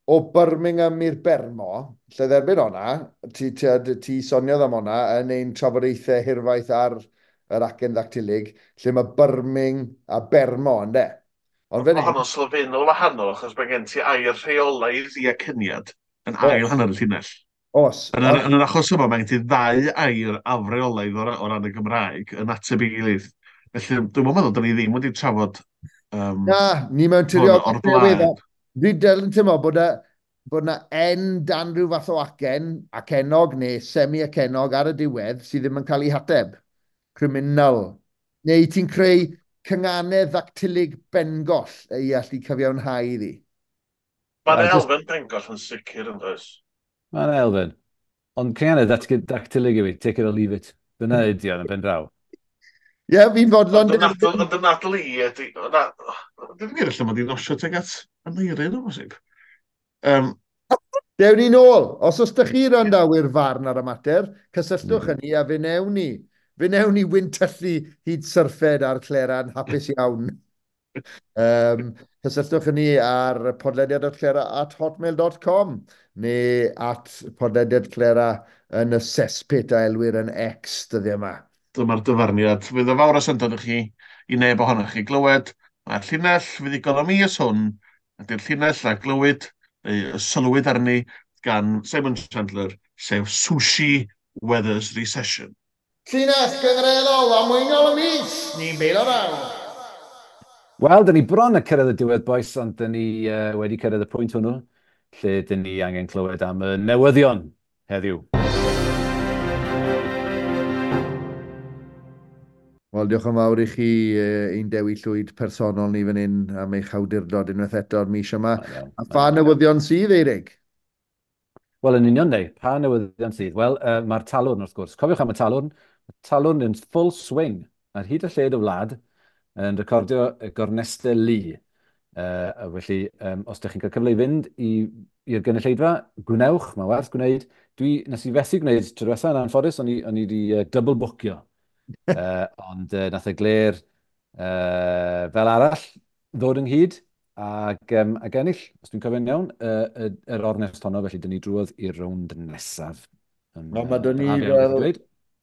o Birmingham i'r Bermo, lle dderbyn o'na, ti soniodd am o'na yn ein trafodaethau hirfaith ar yr acen ddactylig, lle mae Birmingham a Bermo, ynde? Ond fan hyn... Mae sylfaenol wahanol, achos mae gen ti air rheolaidd i acyniad yn ail hanner y llinell. Os. Yn yr achos yma, mae gen ti ddau air afreolaidd o ran y Gymraeg yn ateb ei gilydd. Felly, dwi'n meddwl, dyn ni ddim wedi trafod... Na, ni mewn tiriog o'r blaen. Dwi'n dal yn teimlo bod na N dan rhyw fath o acen, acenog neu semi-acenog ar y diwedd sydd ddim yn cael ei hateb. Criminal. Neu ti'n creu cynganedd ddactylig bengoll i allu cyfiawnhau iddi. Mae'n elfen bengoll yn sicr yn does? Mae'n elfen. Ond cynganedd dactylig yw i, take it or leave it. Dyna ydi o'n pen draw. Ie, fi'n fodlon... Ond y nadl i ydi... Dwi'n gwir allan mod i'n osio tuag at Aneirin o bosib. Dewn ni nôl. Os oes ydych chi randawyr farn ar y mater, cysylltwch â ni a fe newn ni. Fe newn ni wyntyllu hyd syrffed ar Clera'n hapus iawn. Cysylltwch â ni ar podlediad.clera@hotmail.com neu at podlediadclera yn y cesspit a elwir yn X dyddiau yma. Dyma'r dyfarniad. Fydd o fawr o syndod i chi, i neb ohonoch chi glywed. Mae'r llinell fuddugol y mis hwn ydy'r llinell a glywyd, neu sylwyd arni gan Simon Chandler, sef Sushi Weathers Recession. Llinell gyngreddol a mwynol y mis, ni'n beilo raw. Wel, dyn ni bron a cyrraedd y diwedd, boys, ond dyn ni wedi cyrraedd y pwynt hwnnw, lle dyn ni angen clywed am y newyddion heddiw. Wel, diolch yn fawr i chi ein Dewi Llwyd personol ni fan hyn am eich awdurdod unwaith eto'r mis yma. A pha newyddion sydd, Eirig? Wel, yn union, neu, pa newyddion sydd? Wel, mae'r Talwrn, wrth gwrs. Cofiwch am y Talwrn. Y Talwrn yn full swing ar hyd y lled y wlad yn recordio y gornestau lu. Felly, os ydych chi'n cael cyfle i fynd i'r gynulleidfa, gwnewch, mae werth gwneud. Nes i fethu gwneud tro diwetha yn anffodus, o'n i wedi double bookio. Ond nath y Gler fel arall ddod ynghyd ac ennill, os dwi'n cofio'n iawn, yr ornest honno, felly dyn ni drwodd i'r rownd nesaf. Mae dyn ni fel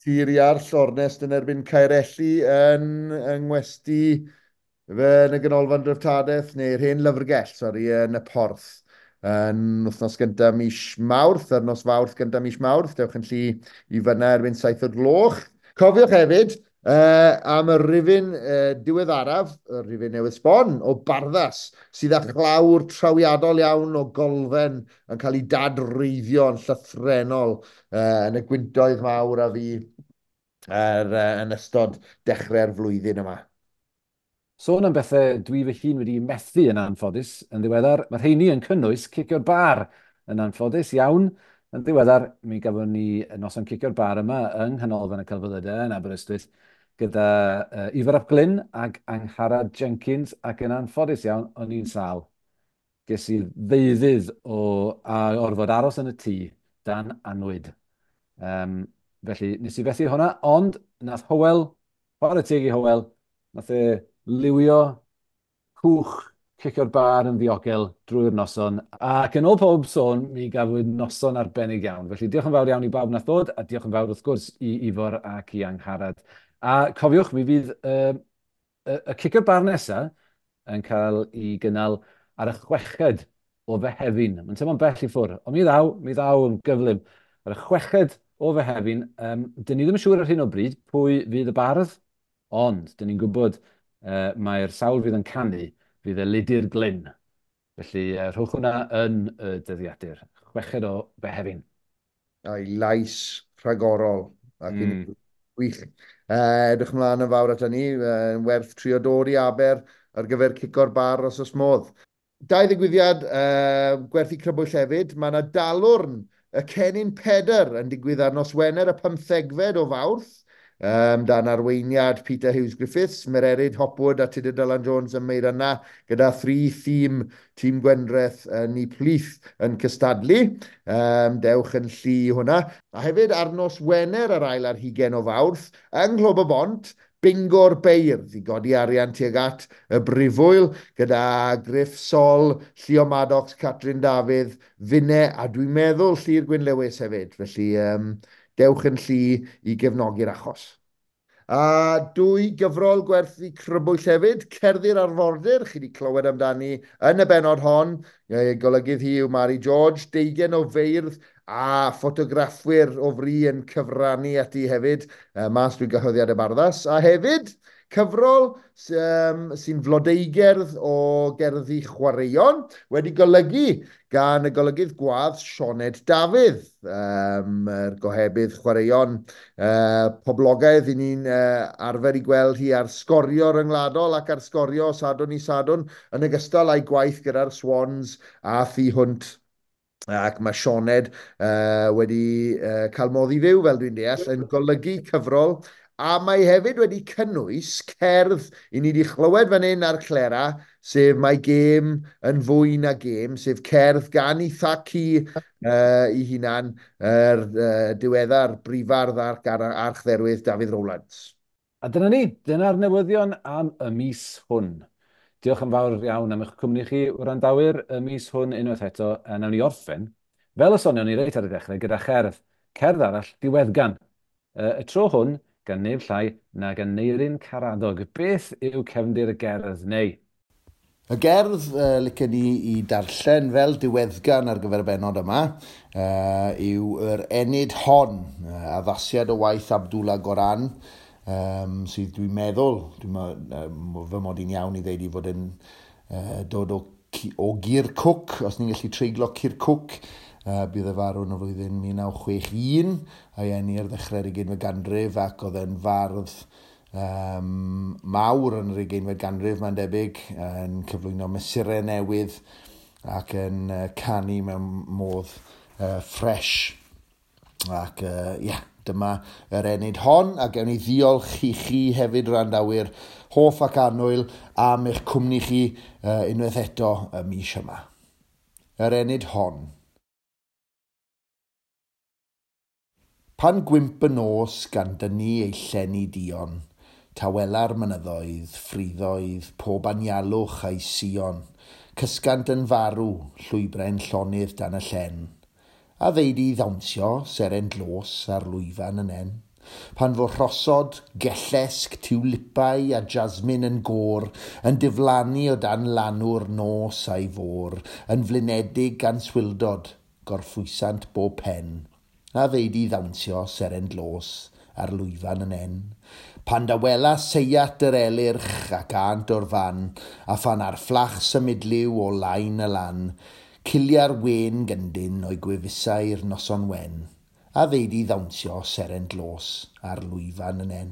Tir Iarll ornest yn erbyn Caerelli yng Ngwesti fe yn y Ganolfan Dreftadaeth, neu'r hen lyfrgell, sori, yn y Porth. Yn wythnos gyntaf mis Mawrth, ar nos Fawrth gyntaf mis Mawrth, dewch yn llu i fyna erbyn 7 o'r gloch. Cofiwch hefyd am y rifyn diweddaraf, y rifyn newydd sbon, o Barddas, sydd â chlawr trawiadol iawn o golfen yn cael ei dadreiddio yn llythrennol yn y gwyntoedd mawr a fi yn ystod dechrau'r flwyddyn yma. Sôn am bethau dwi fy hun wedi methu yn anffodus yn ddiweddar, mae rheini yn cynnwys cicio'r bar yn anffodus iawn. Yn ddiweddar, mi gafon ni noson cicio'r bar yma yng Nghanolfan y Celfyddydau yn Aberystwyth gyda Ifor ap Glyn ac Angharad Jenkins, ac yn anffodus iawn, o'n i'n sâl. Ges i ddeuddydd o a orfod aros yn y tŷ dan annwyd. Felly, nes i fethu hwnna, ond nath Hywel, chwarae teg i Hywel, nath e liwio cwch cicio'r bar yn ddiogel drwy'r noson. Ac yn ôl pob sôn, mi gafwyd noson arbennig iawn. Felly diolch yn fawr iawn i bawb nath ddod, a diolch yn fawr wrth gwrs i Ifor ac i Angharad. A cofiwch, mi fydd y cicio'r bar nesaf yn cael ei gynnal ar y 6fed o Fehefin. Mae'n teimlo'n bell i ffwrdd, ond mi ddaw yn gyflym. Ar y 6fed o Fehefin, dyn ni ddim yn siŵr ar hyn o bryd pwy fydd y bardd, ond dyn ni'n gwybod mae'r sawl fydd yn canu fydd Elidir Glyn. Felly rhowch hwnna yn y dyddiadur. 6fed o Fehefin. A'i lais rhagorol. Ac wych. Edrych ymlaen yn fawr at hynny. Werth trio dod i Aber ar gyfer cico'r bar os oes modd. Dau ddigwyddiad gwerthu crybwyll hefyd. Mae yna dalwrn y Cennin Pedr yn digwydd ar nos Wener y 15fed o Fawrth. Dan arweiniad Peter Hughes Griffiths, Mererid Hopwood a Tudur Dylan Jones ym Meiryna, gyda thri thîm, tîm Gwendraeth yn eu plith yn cystadlu. Dewch yn llu hwnna. A hefyd ar nos Wener yr ail ar hugain o Fawrth, yng Nghlwb y Bont, Bingo'r Beirdd i godi arian tuag at y Brifwyl, gyda Griff Sol, Llio Maddox, Catrin Dafydd, Finne, a dwi'n meddwl Llyr Gwyn Lewis hefyd. Felly dewch yn llu i gefnogi'r achos. A dwy gyfrol gwerthu crybwyll hefyd, Cerddi'r Arfordir, chi wedi clywed amdani yn y bennod hon. Golygydd hi yw Mari George, 20 o feirdd a ffotograffwyr o fri yn cyfrannu ati hefyd, mas drwy gyhoeddiad y Barddas. A hefyd, cyfrol sy'n flodeugerdd o gerddi chwaraeon, wedi golygu gan y golygydd gwadd Sioned Dafydd, yr gohebydd chwaraeon poblogaidd i ni'n arfer i gweld hi ar Sgorio ryngwladol ac ar Sgorio Sadwrn i Sadwrn, yn ogystal â'i gwaith gyda'r Swans a thu hwnt. Ac mae Sioned wedi cael modd i fyw, fel dwi'n deall, yn golygu cyfrol, a mae hefyd wedi cynnwys cerdd i ni wedi chlywed fan hyn ar Clera, sef Mae Gêm yn Fwy Na Gêm, sef cerdd gan ei thacu ei hunan, yr diweddar brifardd ac archdderwydd Dafydd Rowlands. A dyna ni, dyna'r newyddion am y mis hwn. Diolch yn fawr iawn am eich cwmni chi, wrandawyr, y mis hwn unwaith eto, a nawn ni orffen, fel y sonion ni reit ar y dechrau, gyda cherdd. Cerdd arall, diweddgan. Y tro hwn, gan neb llai na gan Aneirin Karadog. Beth yw cefndir y gerdd, neu? Y gerdd licen ni i darllen fel diweddgan ar gyfer y bennod yma yw yr Enid Hon, addasiad o waith Abdullah Goran, sydd dwi'n meddwl, fy mod i'n iawn i ddeud i fod yn dod o Kirkuk, os ni'n gallu treiglo Kirkuk, bydd e farw yn y flwyddyn 1961, a'i eni ar ddechrau'r 20fed ganrif, ac oedd e'n fardd mawr yn yr 20fed ganrif, mae'n debyg, yn cyflwyno mesurau newydd ac yn canu mewn modd ffres. Ac ie, yeah, dyma yr ennyd hon, a gewn ni ddiolch i chi hefyd wrandawyr hoff ac annwyl am eich cwmni chi unwaith eto y mis yma. Yr ennyd hon. Pan gwymp y nos gan dynnu ei llenni duon, tawela'r mynyddoedd, ffriddoedd, pob anialwch a'i sion, cysgant yn farw, llwybrau'n llonydd dan y llen. A ddeud i ddawnsio, seren dlos ar lwyfan y nen. Pan fo rhosod, gellesg, tiwlipau a jasmin yn gôr, yn diflannu o dan lanw'r nos a'i fôr, yn flinedig gan swildod, gorffwysant bob pen. A ddeud i ddawnsio seren dlos ar lwyfan y nen. Pan dawela seiat yr elyrch ac ânt o'r fan, a phan ar fflach symudliw o lain y lan, cilia'r wen gyndyn o'i gwefusau'r noson wen, a ddeud i ddawnsio seren dlos ar lwyfan y nen.